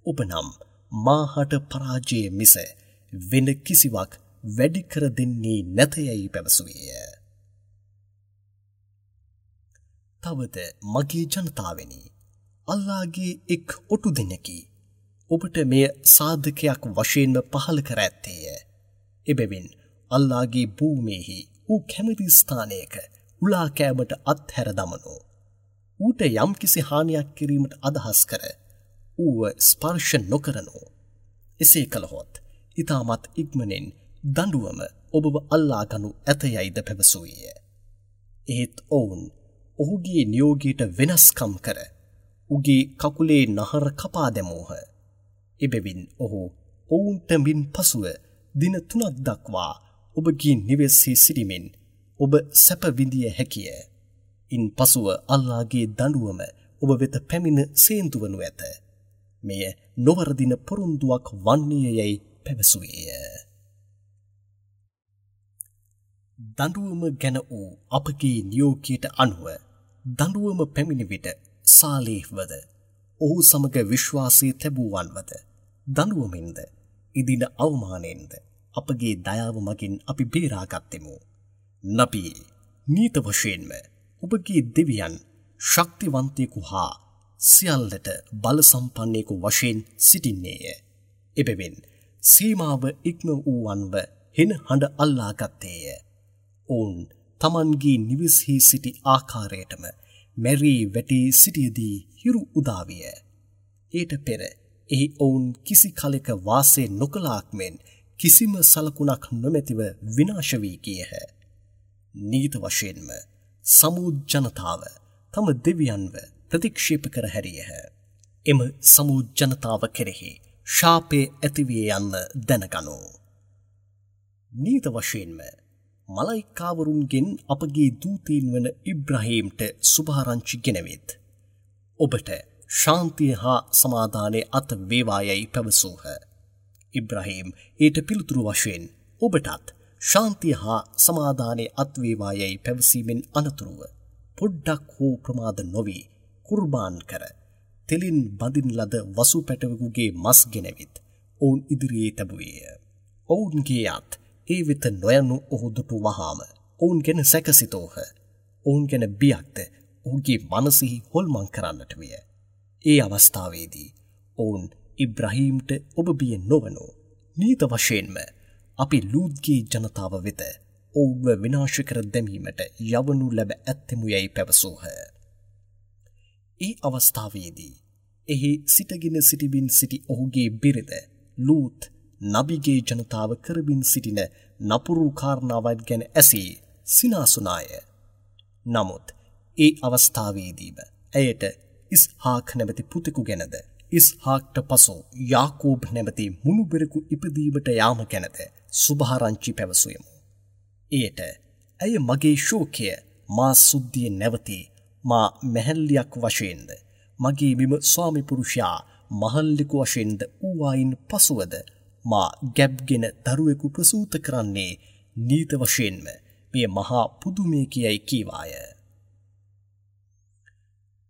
ඔබ නම් මාහට පරාජය මිස වෙන කිසිවක් වැඩි කර දෙන්නේ නැත යැයි පැවසුවේය. තවද මගේ ජනතාවනි, අල්ලාහගේ එක් ඔටු දෙනකි. ඔබට මෙය සාධකයක් වශයෙන්ම පහළ කර ඇත්තේය. එබැවින් අල්ලාහගේ භූමියෙහි ඌ කැමති ස්ථානයක උලා කෑමට අත්හැර දමනු. ඌට යම්කිසි හානියක් කිරීමට අදහස් කර ඌව ස්පර්ශ නොකරනු. එසේ කළහොත් ඉතාමත් ඉක්මනින් දඬුවම ඔබව අල්ලා ගනු ඇත යයිද පැවසුවේය. එහෙත් ඔවුන් ඔහුගේ නියෝගයට වෙනස්කම් කර උගේ කකුලේ නහර කපා දැමූහ. එබැවින් ඔහු ඔවුන්ට මින් පසුව දින 3ක් දක්වා ඔබගේ නිවෙස්හි සිටිමින් ඔබ සැප විඳිය හැකිය. ඉන් පසුව අල්ලාහගේ දඬුවම ඔබ වෙත පැමිණ සේන්තු වනු ඇත. මෙය නොවරදින පොරොන්දුවක් වන්නේය යැයි පැවසුවේය. දඬුවම ගැන වූ අපගේ නියෝගයට අනුව දඬුවම පැමිණි විට සාලේහ්වද ඔහු සමග විශ්වාසය තැබූවන්වද දඬුවමින්ද ඉදින අවමානයෙන්ද අපගේ දයාව මගින් අපි බේරාගත්තෙමු. නබී, නීත වශයෙන්ම ඔබගේ දෙවියන් ශක්තිවන්තයෙකු හා සියල්ලට බල සම්පන්නෙකු වශයෙන් සිටින්නේය. එබැවින් සීමාව ඉක්ම වූවන්ව හෙන හඬ අල්ලාගත්තේය. ඔවුන් තමන්ගේ නිවෙස්හි සිටි ආකාරයටම මැරී වැටී සිටියදී හිරු උදාවිය. ඊට පෙර එහි ඔවුන් කිසි කලෙක වාසය නොකළාක් මෙන් කිසිම සලකුණක් නොමැතිව විනාශ වී ගියහ. නීත වශයෙන්ම සමූද් ජනතාව තම දෙවියන්ව ප්‍රතික්ෂේප කර හැරියහ. එම සමූද් ජනතාව කෙරෙහි ශාපය ඇතිවිය යන්න දැනගනු. නීත වශයෙන්ම මලයිකාවරුන්ගෙන් අපගේ දූතීන් වන ඉබ්‍රහීම්ට සුභාරංචි ගෙනවිත්. ඔබට ශාන්තිය හා සමාදානය අත් වේවා යයි පැවසූහ. ඉබ්‍රහීම් ඊට පිළිතුරු වශයෙන් ඔබටත් ශාන්තිය හා සමාදානය අත් වේවා යයි පැවසීමෙන් අනතුරුව පොඩ්ඩක් හෝ ප්‍රමාද නොවී කුර්බාන් කර තෙලින් බඳින ලද වසු පැටවෙකුගේ මස් ගෙනවිත් ඔවුන් ඉදිරියේ තැබුවේය. ඔවුන්ගේ අත් ඒ වෙත නොයනු ඔහු දුටු වහාම ඔවුන් ගැන සැකසිතෝහ. ඔවුන් ගැන බියක්ද ඔහුගේ මනසෙහි හොල්මන් කරන්නට විය. ඒ අවස්ථාවේදී ඔවුන් ඉබ්‍රහීම්ට ඔබ බිය නොවනු. නීත වශයෙන්ම අපි ලූත්ගේ ජනතාව වෙත ඔවුන්ව විනාශ කර දැමීමට යවනු ලැබ ඇත්තෙමු යැයි පැවසූහ. ඒ අවස්ථාවේදී එහි සිටගෙන සිටිමින් සිටි ඔහුගේ බිරිඳ ලූත් නබිගේ ජනතාව කරමින් සිටින නපුරු කාරණාවන් ගැන ඇසී සිනාසුනාය. නමුත් ඒ අවස්ථාවේදීම ඇයට ඉස්හාක් නැමැති පුතෙකු ගැනද ඉස්හාක්ට පසු යාකෝබ් නැමැති මුණුබිරෙකු ඉපදීමට යාම ගැනද සුභාරංචි පැවසුවෙමු. එයට ඇය මගේ ශෝකය මා සුද්ධිය නැවතී මා මැහැල්ලියක් වශයෙන්ද මගේ මෙම ස්වාමි පුරුෂයා මහල්ලෙකු වශයෙන්ද වූවායින් පසුවද මා ගැබ්ගෙන දරුවෙකු ප්‍රසූත කරන්නේ නීත වශයෙන්ම මෙය මහා පුදුමය කියයි කීවාය.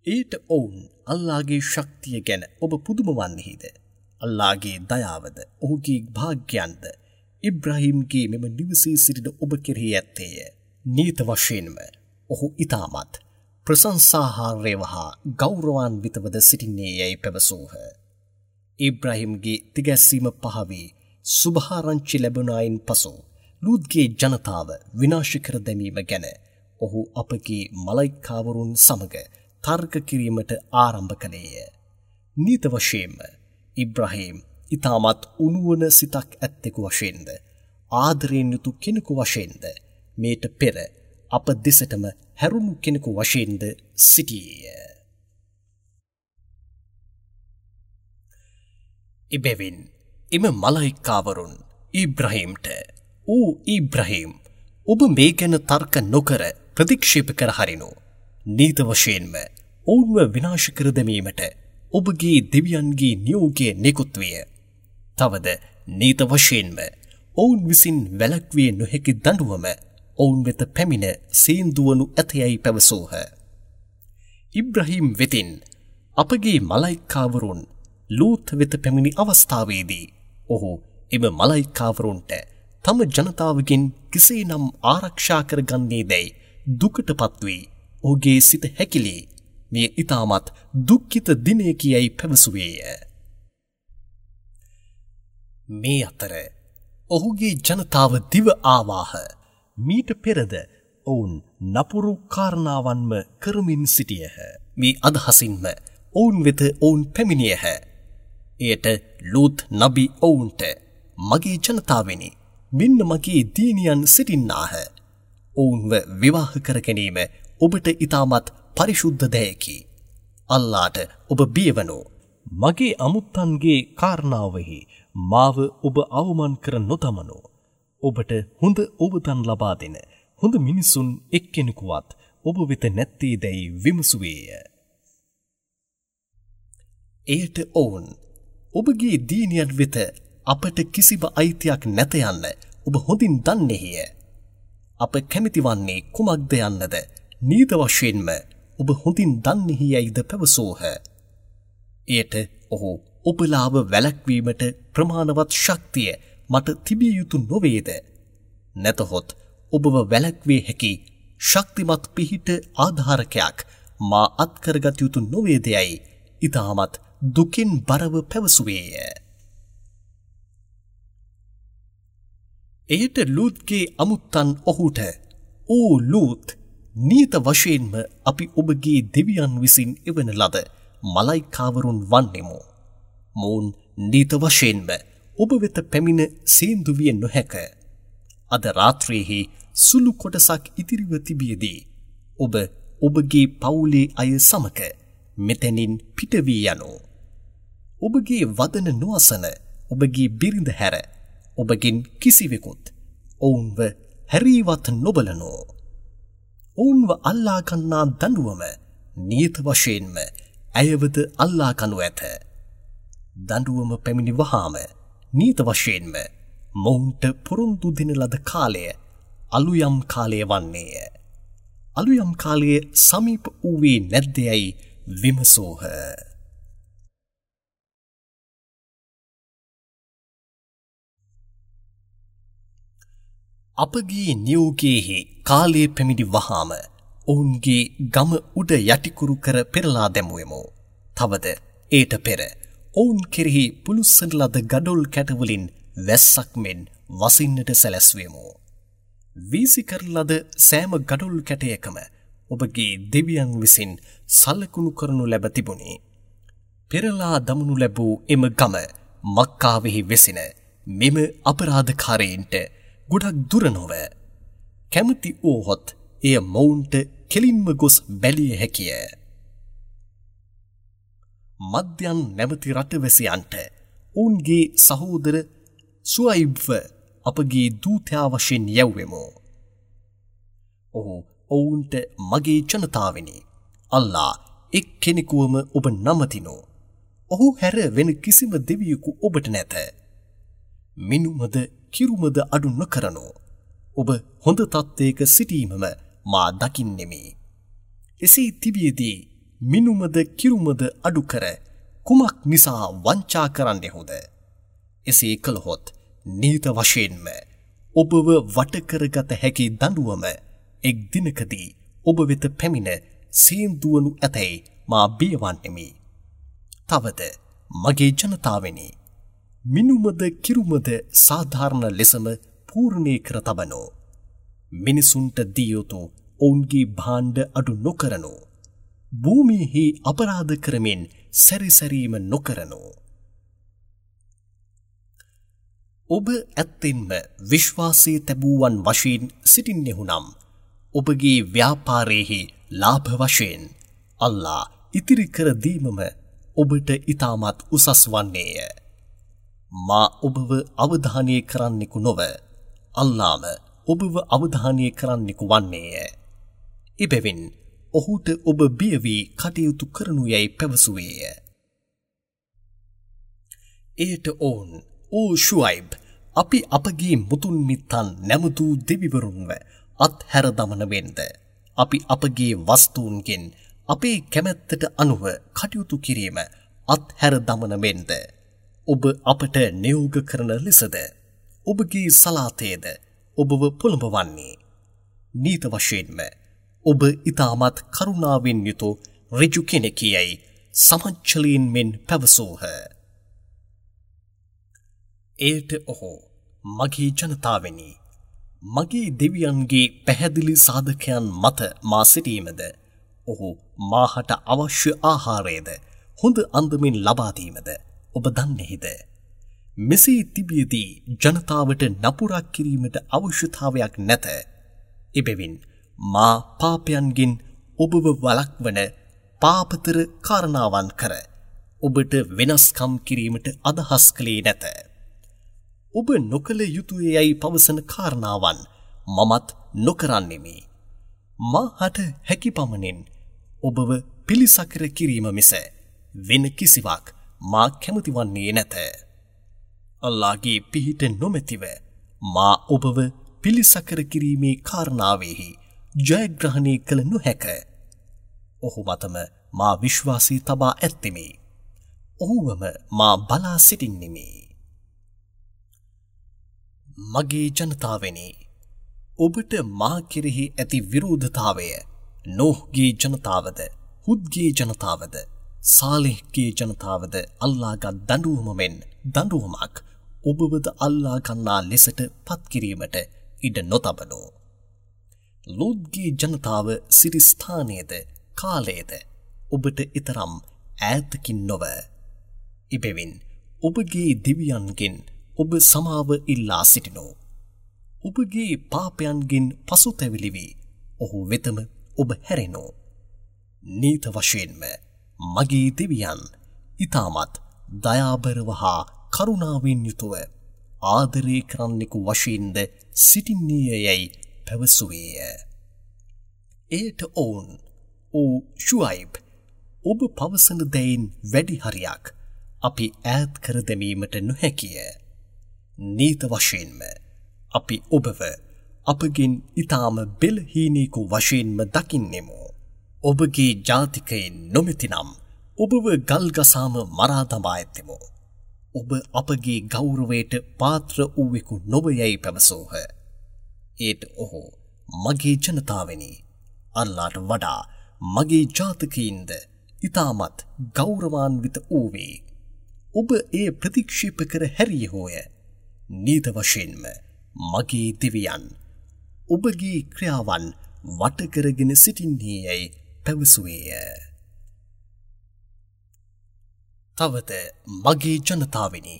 ඊට ඔවුන් අල්ලාහගේ ශක්තිය ගැන ඔබ පුදුම වන්නේහිද? අල්ලාහගේ දයාවද ඔහුගේ භාග්‍යයන්ද ඉබ්‍රහීම්ගේ මෙම නිවසේ සිටින ඔබ කෙරෙහි ඇත්තේය. නීත වශයෙන්ම ඔහු ඉතාමත් ප්‍රශංසාහාරයව හා ගෞරවාන්විතවද සිටින්නේ යැයි පැවසූහ. ඉබ්‍රහීම්ගේ තිගැස්සීම පහවී සුභාරංචි ලැබුණායින් පසු ලූත්ගේ ජනතාව විනාශ කර දැමීම ගැන ඔහු අපගේ මලයිකාවරුන් සමග තර්ක කිරීමට ආරම්භ කළේය. නීත වශයෙන්ම ඉබ්‍රහීම් ඉතාමත් උණුවන සිතක් ඇත්තෙකු වශයෙන්ද ආදරයෙන් යුතු කෙනෙකු වශයෙන්ද මේට පෙර අප දෙසටම හැරුණු කෙනෙකු වශයෙන්ද සිටියේය. එබැවින් එම මලයිකාවරුන් ඉබ්‍රහීම්ට, "ඕ ඉබ්‍රහීම්, ඔබ මේ ගැන තර්ක නොකර ප්‍රතික්ෂේප කර හරිනු. නීත වශයෙන්ම ඔවුන්ව විනාශ කර දැමීමට ඔබගේ දෙවියන්ගේ නියෝගය නිකුත් විය. තවද නීත වශයෙන්ම ඔවුන් විසින් වැළැක්විය නොහැකි දඬුවම ඔවුන් වෙත පැමිණ සේන්දුවනු ඇතයයි පැවසූහ. ඉබ්‍රහීම් වෙතින් අපගේ මලයිකාවරුන් ලූත් වෙත පැමිණි අවස්ථාවේදී ඔහු එම මලයිකාවරුන්ට තම ජනතාවගෙන් කෙසේනම් ආරක්ෂා කරගන්නේ දැයි දුකට පත්වී ඔහුගේ සිත හැකිලී මෙය ඉතාමත් දුක්ඛිත දිනයකි යයි පැවසුවේය. මේ අතර ඔහුගේ ජනතාව දිව ආවාහ. මීට පෙරද ඔවුන් නපුරු කාරණාවන්ම කරමින් සිටියහ. මේ අදහසින්ම ඔවුන් වෙත ඔවුන් පැමිණියහ. එයට ලූත් නබි ඔවුන්ට, මගේ ජනතාවෙනි, මෙන්න මගේ දීනියන් සිටින්නාහ. ඔවුන්ව විවාහ කර ගැනීම ඔබට ඉතාමත් පරිශුද්ධ දෙයකි. අල්ලාට ඔබ බියවනු. මගේ අමුත්තන්ගේ කාරණාවෙහි මාව ඔබ අවමන් කර නොදමනු. ඔබට හොඳ ඔබදන් ලබා දෙන හොඳ මිනිසුන් එක්කෙනෙකුවත් ඔබ වෙත නැත්තේ දැයි විමසුවේය. එයට ඔවුන්, ඔබගේ දීනියන් වෙත අපට කිසිම අයිතියක් නැත යන්න ඔබ හොඳින් දන්නේහිය. අප කැමති වන්නේ කුමක්ද යන්නද නීත වශයෙන්ම ඔබ හොඳින් දන්නේහි යයිද පැවසූහ. එයට ඔහු, ඔබලාව වැළැක්වීමට ප්‍රමාණවත් ශක්තිය මට තිබිය යුතු නොවේද? නැතහොත් ඔබව වැළැක්විය හැකි ශක්තිමත් පිහිට ආධාරකයක් මා අත්කරගත යුතු නොවේද යයි ඉතාමත් දුකින් බරව පැවසුවේය. එයට ලූත්ගේ අමුත්තන් ඔහුට, "ඕ ලූත්, නීත වශයෙන්ම අපි ඔබගේ දෙවියන් විසින් එවන ලද මලයිකාවරුන් වන්නෙමු. මොවුන් නීත වශයෙන්ම ඔබ වෙත පැමිණ සේන්දු විය නොහැක. අද රාත්‍රියේහි සුළු කොටසක් ඉතිරිව තිබියදී ඔබ ඔබගේ පවුලේ අය සමග මෙතැනින් පිටවී යනු. ඔබගේ වදන නොඅසන ඔබගේ බිරිඳ හැර ඔබගෙන් කිසිවෙකුත් ඔවුන්ව හැරීවත් නොබලනෝ. ඔවුන්ව අල්ලා ගන්නා දඬුවම නියත වශයෙන්ම ඇයවද අල්ලා ගනු ඇත. දඬුවම පැමිණි වහාම නීත වශයෙන්ම මොවුන්ට පොරොන්දු දෙන ලද කාලය අලුයම් කාලය වන්නේය. අලුයම් කාලය සමීප වූයේ නැද්දයයි විමසූහ. අපගේ නියෝගයේහි කාලය පැමිණි වහාම ඔවුන්ගේ ගම උඩ යටිකුරු කර පෙරලා දැමුවෙමු. තවද ඒට පෙර ඔවුන් කෙරෙහි පුළුස්සන ලද ගඩොල් කැටවලින් වැස්සක් මෙන් වසින්නට සැලැස්වෙමු. වීසි කරන ලද සෑම ගඩොල් කැටයකම ඔබගේ දෙවියන් විසින් සලකුණු කරනු ලැබ තිබුණි. පෙරලා දමනු ලැබූ එම ගම මක්කාවෙහි වෙසෙන මෙම අපරාධකාරයින්ට ගොඩක් දුර නොව. කැමති වූහොත් එය මොවුන්ට කෙලින්ම ගොස් බැලිය හැකිය. මධ්‍යන් නැමැති රටවැසියන්ට ඔවුන්ගේ සහෝදර සුඅයිබ්ව අපගේ දූතයා වශයෙන් යැව්වෙමු. ඔහු ඔවුන්ට මගේ ජනතාවෙනි, අල්ලා එක් කෙනෙකුවම ඔබ නමතිනු. ඔහු හැර වෙන කිසිම දෙවියෙකු ඔබට නැත. මිනුමද කිරුමද අඩු නොකරනු. ඔබ හොඳ තත්ත්වයක සිටීමම මා දකින්නෙමි. එසේ තිබියදී මිනුමද කිරුමද අඩු කර කුමක් නිසා වංචා කරන්නෙහුද? එසේ කළහොත් නීත වශයෙන්ම ඔබව වටකරගත හැකි දඬුවම එක් දිනකදී ඔබ වෙත පැමිණ සේන්දුවනු ඇතැයි මා බියවන්නෙමි. තවද මගේ ජනතාවෙනි, මිනුමද කිරුමද සාධාරණ ලෙසම පූර්ණේ කර තබනෝ. මිනිසුන්ට දිය යුතු ඔවුන්ගේ භාණ්ඩ අඩු නොකරනෝ. භූමියෙහි අපරාධ කරමින් සැරිසැරීම නොකරනෝ. ඔබ ඇත්තෙන්ම විශ්වාසය තැබූවන් වශයෙන් සිටින්නෙහු නම් ඔබගේ ව්‍යාපාරයෙහි ලාභ වශයෙන් අල්ලා ඉතිරි කර දීමම ඔබට ඉතාමත් උසස් වන්නේය. මා ඔබව අවධානය කරන්නෙකු නොව අල්ලාම ඔබව අවධානය කරන්නෙකු වන්නේය. එබැවින් ඔහුට ඔබ බිය වී කටයුතු කරනු යැයි පැවසුවේය. එයට ඔවුන්, ඕ ෂුඅයිබ්, අපි අපගේ මුතුන් මිත්තන් නැමදූ දෙවිවරුන්ව අත්හැර දමන වෙන්ද, අපි අපගේ වස්තුන්ගෙන් අපේ කැමැත්තට අනුව කටයුතු කිරීම අත්හැර දමන වෙන්ද, ඔබ අපට නියෝග කරන ලෙසද ඔබගේ සලාතයද ඔබව පොළඹවන්නේ? නීත වශයෙන්ම ඔබ ඉතාමත් කරුණාවෙන් යුතු ඍජු කෙනෙකි යැයි සමච්චලීන් මෙන් පැවසූහ. එයට ඔහු, මගේ ජනතාවෙනි, මගේ දෙවියන්ගේ පැහැදිලි සාධකයන් මත මා සිටීමද, ඔහු මාහට අවශ්‍ය ආහාරයද හොඳ අන්දමින් ලබා දීමද ඔබ දන්නේහිද? මෙසේ තිබියදී ජනතාවට නපුරක් කිරීමට අවශ්‍යතාවයක් නැත. එබැවින් මා පාපයන්ගෙන් ඔබව වළක්වන පාපතර කාරණාවන් කර ඔබට වෙනස්කම් කිරීමට අදහස් කළේ නැත. ඔබ නොකළ යුතුය යැයි පවසන කාරණාවන් මමත් නොකරන්නෙමි. මාහට හැකි පමණින් ඔබව පිළිසකර කිරීම මිස වෙන කිසිවක් මා කැමති වන්නේ නැත. අල්ලාහගේ පිහිට නොමැතිව මා ඔබව පිළිසකර කිරීමේ කාරණාවෙහි ජයග්‍රහණය කළ නොහැක. ඔහු මතම මා විශ්වාසය තබා ඇත්තෙමි. ඔහුවම මා බලා සිටින්නෙමි. මගේ ජනතාවෙනි, ඔබට මා කෙරෙහි ඇති විරෝධතාවය නෝහ්ගේ ජනතාවද, හුද්ගේ ජනතාවද, සාලිහ්ගේ ජනතාවද අල්ලාගත් දඬුවම මෙන් දඬුවමක් ඔබවද අල්ලා ගන්නා ලෙසට පත් කිරීමට ඉඩ නොතබනෝ. ලූත්ගේ ජනතාව සිටි ස්ථානයේද කාලයේද ඔබට ඊතරම් ඈතකින් නොව. එබැවින් ඔබගේ දෙවියන්ගෙන් ඔබ සමාව ඉල්ලා සිටිනෝ. ඔබගේ පාපයන්ගෙන් පසුතැවිලි වී ඔහු වෙතම ඔබ හැරෙනෝ. නීත වශයෙන්ම මගේ දෙවියන් ඊටමත් දයාබරව හා කරුණාවෙන් යුතුව ආදරය කරන්නෙකු වශයෙන්ද සිටින්නේය යැයි පැවසුවේය. එයට ඔවුන්, ඕ ෂුඅයිබ්, ඔබ පවසන දෙයින් වැඩි හරියක් අපි ඈත් කර දැමීමට නොහැකිය. නීත වශයෙන්ම අපි ඔබව අපගෙන් ඊටාම බෙලහීනෙකු වශයෙන්ම දකින්නෙමු. ඔබගේ ජාතිකයින් නොමැතිනම් ඔබව ගල්ගසාම මරා දමා ඇත්තෙමු. ඔබ අපගේ ගෞරවයට පාත්‍ර වූවෙකු නොව යැයි පැවසූහ. ඒට ඔහු මගේ ජනතාවනි, අල්ලාට වඩා මගේ ජාතකයින්ද ඊටමත් ගෞරවාන්විත වූවේ. ඔබ එය ප්‍රතික්ෂේප කර හැරියහෝය. නීත වශයෙන්ම මගේ දෙවියන් ඔබගේ ක්‍රියාවන් වට කරගෙන සිටින්නේ යැයි පැවසුවේය. තවද මගේ ජනතාවනි,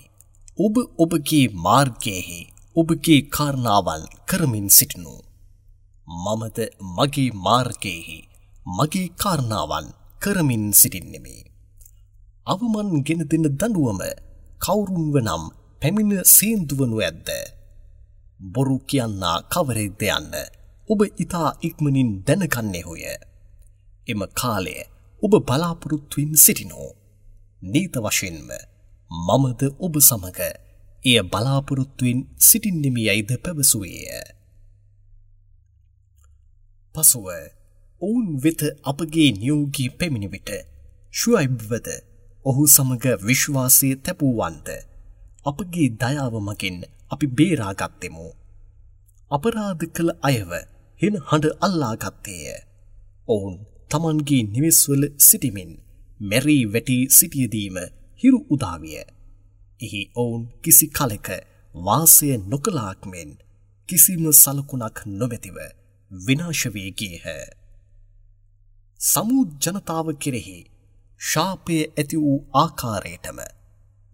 ඔබ ඔබගේ මාර්ගයෙහි ඔබගේ කාරණාවන් කරමින් සිටිනු. මමද මගේ මාර්ගයෙහි මගේ කාරණාවන් කරමින් සිටින්නෙමි. අවමන් ගෙන දෙන දඬුවම කවුරුන්ව නම් පැමිණ සේන්දුවනු ඇද්ද? බොරු කියන්නා කවරෙක්ද යන්න ඔබ ඉතා ඉක්මනින් දැනගන්නේහුය. එම කාලය ඔබ බලාපොරොත්තුවෙන් සිටිනෝ. නීත වශයෙන්ම මමද ඔබ සමග එය බලාපොරොත්තුවෙන් සිටින්නෙමි යයිද පැවසුවේය. පසුව ඔවුන් වෙත අපගේ නියෝගී පැමිණි විට ෂුඅයිබ්වද ඔහු සමග විශ්වාසය තැබූවන්ද අපගේ දයාව මගින් අපි බේරාගත්තෙමු. අපරාධ කළ අයව හෙන හඬ අල්ලාගත්තේය. ඔවුන් තමන්ගේ නිවෙස්වල සිටිමින් මැරී වැටී සිටියදීම හිරු උදාවිය. එහි ඔවුන් කිසි කලෙක වාසය නොකළාක් මෙන් කිසිම සලකුණක් නොමැතිව විනාශ වී ගියහ. සමූද් ජනතාව කෙරෙහි ශාපය ඇති වූ ආකාරයටම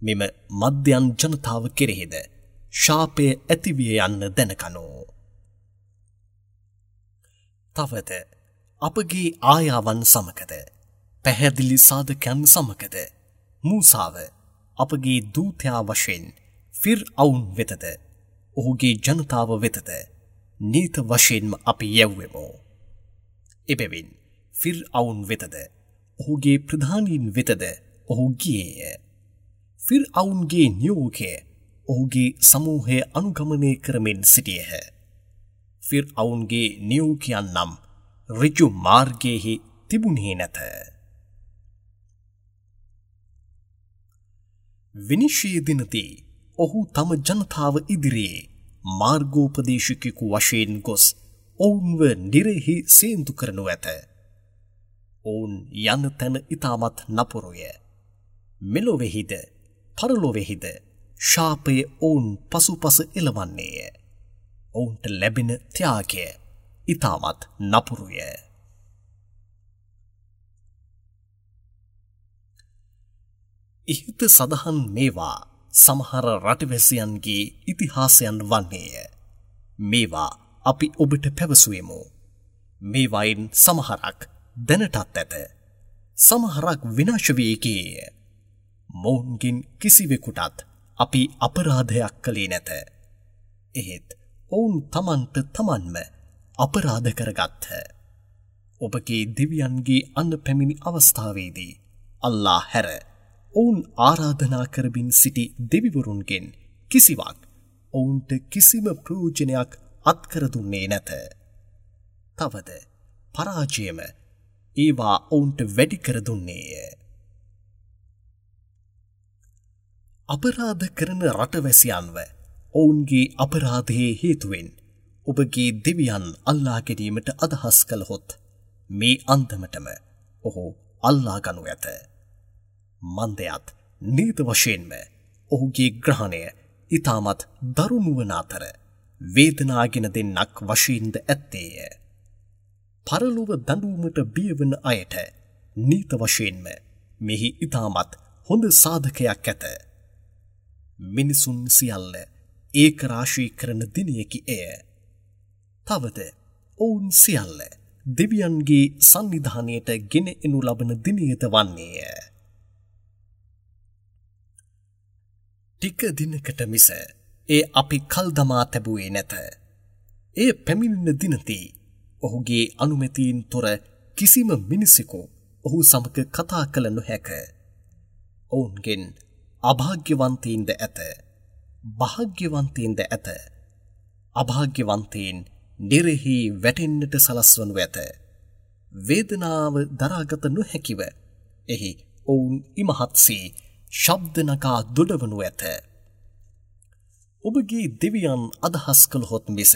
මෙම මධ්‍යන් ජනතාව කෙරෙහිද ශාපය ඇතිවිය යන්න දැනකනෝ. තවද අපගේ ආයාවන් සමගද පැහැදිලි සාධකයන් සමගද මූසාව අපගේ දූතයා වශයෙන් ෆිර්අවුන් වෙතද ඔහුගේ ජනතාව වෙතද නීත වශයෙන්ම අපි යැව්වෙමු. එබැවින් ෆිර්අවුන් වෙතද ඔහුගේ ප්‍රධානීන් වෙතද ඔහු ගියේය. ෆිර්අවුන්ගේ නියෝගය ඔහුගේ සමූහය අනුගමනය කරමින් සිටියහ. ෆිර්අවුන්ගේ නියෝගයන් නම් ඍජු මාර්ගයෙහි තිබුණේ නැත. විනිශ්චය දිනදී ඔහු තම ජනතාව ඉදිරියේ මාර්ගෝපදේශකයෙකු වශයෙන් ගොස් ඔවුන්ව නිරෙහි සේන්දු කරනු ඇත. ඔවුන් යන තැන ඉතාමත් නපුරුය. මෙලොවෙහිද පරලොවෙහිද ශාපය ඔවුන් පසුපස එළවන්නේය. ඔවුන්ට ලැබෙන ත්‍යාගය ඉතාමත් නපුරුය. ඉහත සඳහන් මේවා සමහර රටවැසියන්ගේ ඉතිහාසයන් වන්නේය. මේවා අපි ඔබට පැවසුවෙමු. මේවායින් සමහරක් දැනටත් ඇත. සමහරක් විනාශ වී ගියේය. මොවුන්ගෙන් කිසිවෙකුටත් අපි අපරාධයක් කළේ නැත. එහෙත් ඔවුන් තමන්ට තමන්ම අපරාධ කරගත්හ. ඔබගේ දෙවියන්ගේ අන්න පැමිණි අවස්ථාවේදී අල්ලා හැර ඔවුන් ආරාධනා කරමින් සිටි දෙවිවරුන්ගෙන් කිසිවක් ඔවුන්ට කිසිම ප්‍රයෝජනයක් අත්කර දුන්නේ නැත. තවද පරාජයම ඒවා ඔවුන්ට වැඩි කර දුන්නේය. අපරාධ කරන රටවැසියන්ව ඔවුන්ගේ අපරාධයේ හේතුවෙන් ඔබගේ දෙවියන් අල්ලා ගැනීමට අදහස් කළහොත් මේ අන්දමටම ඔහු අල්ලා ගනු ඇත. මන්දයත් නීත වශයෙන්ම ඔහුගේ ග්‍රහණය ඉතාමත් දරුණු වන අතර වේදනාගෙන දෙන්නක් වශයෙන්ද ඇත්තේය. පරලොව දඬුවමට බියවන අයට නීත වශයෙන්ම මෙහි ඉතාමත් හොඳ සාධකයක් ඇත. මිනිසුන් සියල්ල ඒකරාශී කරන දිනයකි එය. තවද ඔවුන් සියල්ල දෙවියන්ගේ සන්නිධානයට ගෙන එනු ලබන දිනයද වන්නේය. ටික දිනකට මිස ඒ අපි කල් දමා තැබුවේ නැත. එය පැමිණෙන දිනදී ඔහුගේ අනුමැතියෙන් තොර කිසිම මිනිසෙකු ඔහු සමග කතා කළ නොහැක. ඔවුන්ගෙන් අභාග්‍යවන්තයින්ද ඇත, භාග්‍යවන්තයින්ද ඇත. අභාග්‍යවන්තයින් නිරෙහි වැටෙන්නට සලස්වනු ඇත. වේදනාව දරාගත නොහැකිව එහි ඔවුන් ඉමහත්සේ ශබ්ද නගා දොඩවනු ඇත. ඔබගේ දෙවියන් අදහස් කළහොත් මිස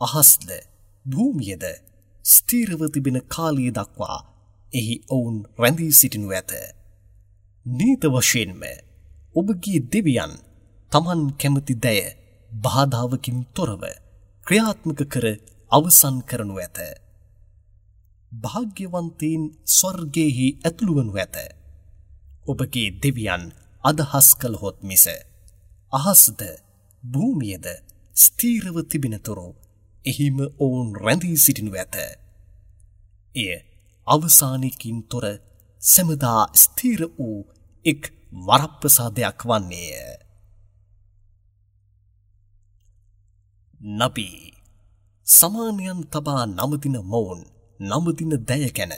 අහස්ද භූමියද ස්ථිරව තිබෙන කාලය දක්වා එහි ඔවුන් රැඳී සිටිනු ඇත. නීත වශයෙන්ම ඔබගේ දෙවියන් තමන් කැමති දෑ බාධාවකින් තොරව ක්‍රියාත්මක කර අවසන් කරනු ඇත. භාග්‍යවන්තයින් ස්වර්ගයෙහි ඇතුළු වනු ඇත. ඔබගේ දෙවියන් අදහස් කළහොත් මිස අහස්ද භූමියද ස්ථිරව තිබෙනතුරු එහිම ඔවුන් රැඳී සිටිනු ඇත. එය අවසානයකින් තොර සැමදා ස්ථිර වූ එක් වරප්‍රසාදයක් වන්නේය. නබී සමානයන් තබා නමදින මොවුන් නමදින දය ගැන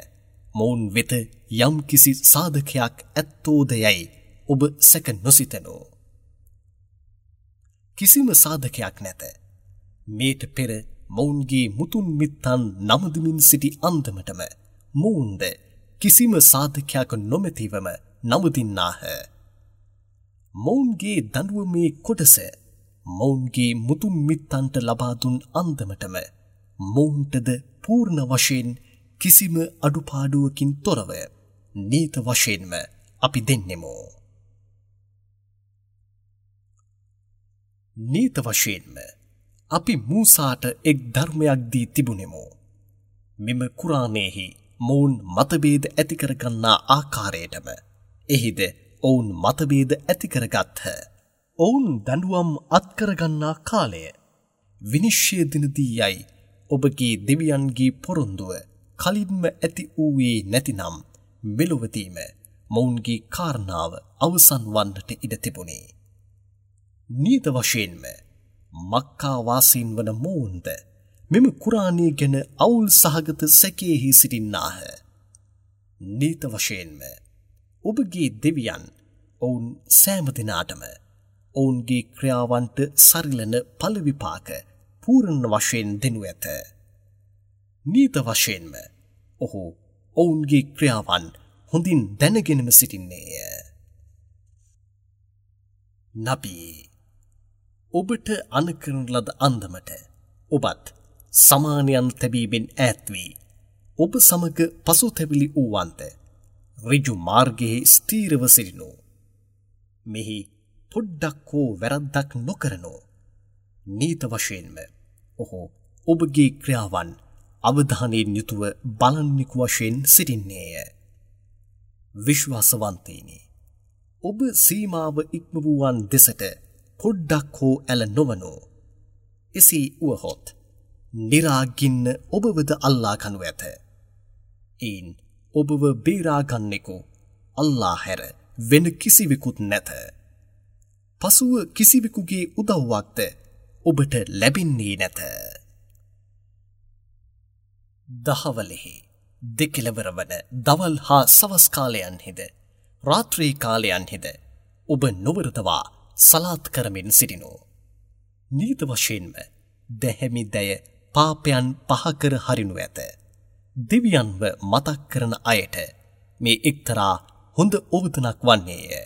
මොවුන් වෙත යම් කිසි සාධකයක් ඇත්තෝද යයි ඔබ සැක නොසිතනෝ. කිසිම සාධකයක් නැත. මේට පෙර මොවුන්ගේ මුතුන් මිත්තන් නමදිමින් සිටි අන්දමටම මොවුන්ද කිසිම සාධකයක් නොමැතිවම නමදින්නාහ. මොවුන්ගේ දඬුවමේ කොටස මොවුන්ගේ මුතුන් මිත්තන්ට ලබා දුන් අන්දමටම මොවුන්ටද පූර්ණ වශයෙන් කිසිම අඩුපාඩුවකින් තොරව නීත වශයෙන්ම අපි දෙන්නෙමු. නීත වශයෙන්ම අපි මූසාට එක් ධර්මයක් දී තිබුණෙමු. මෙම කුරානයේහි මොවුන් මතභේද ඇති කරගන්නා ආකාරයටම එහිද ඔවුන් මතභේද ඇති කරගත්හ. ඔවුන් දඬුවම් අත්කරගන්නා කාලය විනිශ්චය දිනදී යයි ඔබගේ දෙවියන්ගේ පොරොන්දුව කලින්ම ඇති වූයේ නැතිනම් මෙලොවදීම මොවුන්ගේ කාරණාව අවසන් වන්නට ඉඩ තිබුණේ. නීත වශයෙන්ම මක්කා වාසීන් වන මොවුන්ද මෙම කුරානය ගැන අවුල් සහගත සැකයෙහි සිටින්නාහ. නීත වශයෙන්ම ඔබගේ දෙවියන් ඔවුන් සෑම දෙනාටම ඔවුන්ගේ ක්‍රියාවන්ට සරිලන ඵල විපාක පූර්ණ වශයෙන් දෙනු ඇත. නීත වශයෙන්ම ඔහු ඔවුන්ගේ ක්‍රියාවන් හොඳින් දැනගෙනම සිටින්නේය. නබී ඔබට අනකරන ලද අන්දමට ඔබත් සමානයන් තැබීමෙන් ඈත් වී ඔබ සමග පසුතැවිලි වූවන්ට ඍජු මාර්ගයේ ස්ථිරව සිටිනු. මෙහි පොඩ්ඩක් හෝ වැරද්දක් නොකරනු. නීත වශයෙන්ම ඔහු ඔබගේ ක්‍රියාවන් අවධානයෙන් යුතුව බලන්නෙකු වශයෙන් සිටින්නේය. විශ්වාසවන්තයිනි, ඔබ සීමාව ඉක්ම වූවන් දෙසට පොඩ්ඩක් හෝ ඇල නොවනු. එසේ වුවහොත් නිරාගින්න ඔබවද අල්ලා ගනු ඇත. එයින් ඔබව බේරා ගන්නෙකු අල්ලා හැර වෙන කිසිවෙකුත් නැත. පසුව කිසිවෙකුගේ උදව්වක්ද ඔබට ලැබෙන්නේ නැත. දහවලෙහි දෙකෙළවර වන දවල් හා සවස් කාලයන්හිද රාත්‍රී කාලයන්හිද ඔබ නොවරදවා සලාත් කරමින් සිටිනු. නීත වශයෙන්ම දැහැමි දැය පාපයන් පහකර හරිනු ඇත. දෙවියන්ව මතක් කරන අයට මේ එක්තරා හොඳ ඔවතනක් වන්නේය.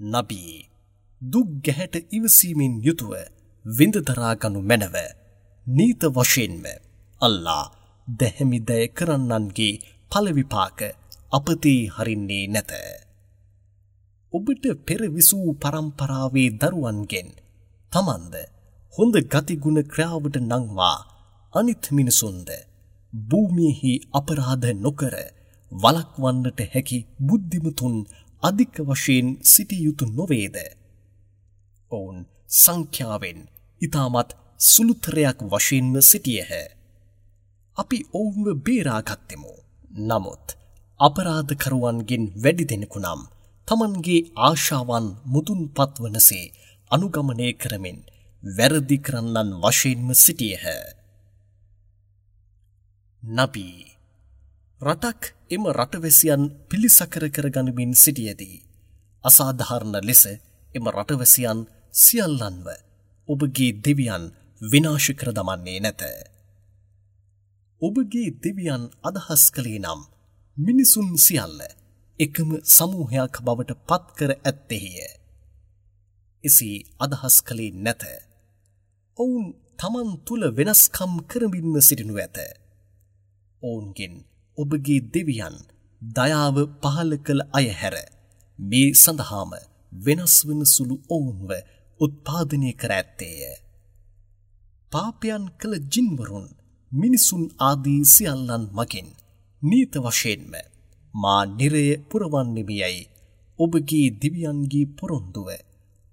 නබී දුක් ගැහැට ඉවසීමෙන් යුතුව විඳ දරා ගනු මැනව. නීත වශයෙන්ම අල්ලා දැහැමි දය කරන්නන්ගේ ඵල විපාක අපතේ හරින්නේ නැත. ඔබට පෙර විසූ පරම්පරාවේ දරුවන්ගෙන් තමන්ද හොඳ ගතිගුණ ක්‍රියාවට නංවා අනිත් මිනිසුන්ද භූමියෙහි අපරාධ නොකර වළක්වන්නට හැකි බුද්ධිමතුන් අධික වශයෙන් සිටිය යුතු නොවේද? ඔවුන් සංඛ්‍යාවෙන් ඉතාමත් සුළුතරයක් වශයෙන්ම සිටියහ. අපි ඔවුන්ව බේරාගත්තෙමු. නමුත් අපරාධකරුවන්ගෙන් වැඩි දෙනෙකු නම් තමන්ගේ ආශාවන් මුදුන්පත් වනසේ අනුගමනය කරමින් වැරදි කරන්නන් වශයෙන්ම සිටියහ. නබී රටක් එම රටවැසියන් පිළිසකර කරගනිමින් සිටියදී අසාධාරණ ලෙස එම රටවැසියන් සියල්ලන්ව ඔබගේ දෙවියන් විනාශ කර දමන්නේ නැත. ඔබගේ දෙවියන් අදහස් කළේ නම් මිනිසුන් සියල්ල එකම සමූහයක් බවට පත් කර ඇත්තේය. එසේ අදහස් කළේ නැත. ඔවුන් තමන් තුළ වෙනස්කම් කරමින්ම සිටිනු ඇත. ඔවුන්ගෙන් ඔබගේ දෙවියන් දයාව පහළ කළ අය හැර මේ සඳහාම වෙනස් වන සුළු ඔවුන්ව උත්පාදනය කර ඇත්තේය. පාපයන් කළ ජින්වරුන් මිනිසුන් ආදී සියල්ලන් මගින් නීත වශයෙන්ම මා නිරය පුරවන්නෙමි යයි ඔබගේ දෙවියන්ගේ පොරොන්දුව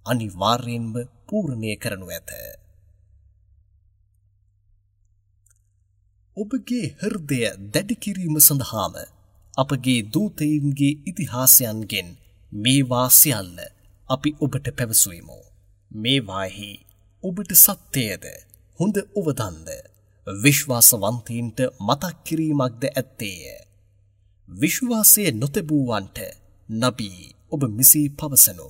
අනිවාර්යයෙන්ම පූර්ණය කරනු ඇත. ඔබගේ හෘදය දැඩි කිරීම සඳහාම අපගේ දූතයින්ගේ ඉතිහාසයන්ගෙන් මේවා සියල්ල අපි ඔබට පැවසුවෙමු. මේවාෙහි ඔබට සත්‍යයද හොඳ ඔවදන්ද විශ්වාසවන්තයින්ට මතක් කිරීමක්ද ඇත්තේය. විශ්වාසය නොතැබූවන්ට නබී ඔබ මෙසේ පවසනු.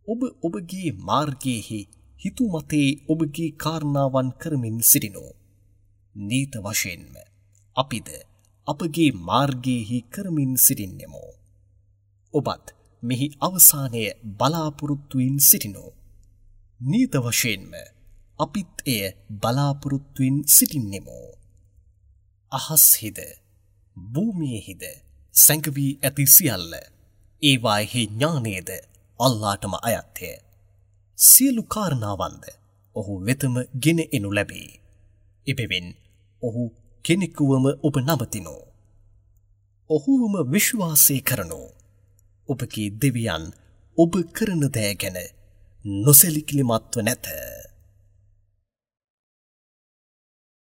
ඔබ ඔබගේ මාර්ගයේහි හිතුමතේ ඔබගේ කාරණාවන් කරමින් සිටිනු. නීත වශයෙන්ම අපිද අපගේ මාර්ගයේහි කරමින් සිටින්නෙමු. ඔබත් මෙහි අවසානය බලාපොරොත්තුවෙන් සිටිනු. නීත වශයෙන්ම අපිත් එය බලාපොරොත්තුවෙන් සිටින්නෙමු. අහස්හිද භූමියේහිද සැඟවී ඇති සියල්ල ඒවායෙහි ඥානයද අල්ලාටම අයත්ය. සියලු කාරණාවන්ද ඔහු වෙතම ගෙන එනු ලැබේ. එබැවින් ඔහු කෙනෙකුවම ඔබ නමතිනු. ඔහුවම විශ්වාසය කරනු. ඔබගේ දෙවියන් ඔබ කරන දෑ ගැන නොසැලකිලිමත්ව නැත.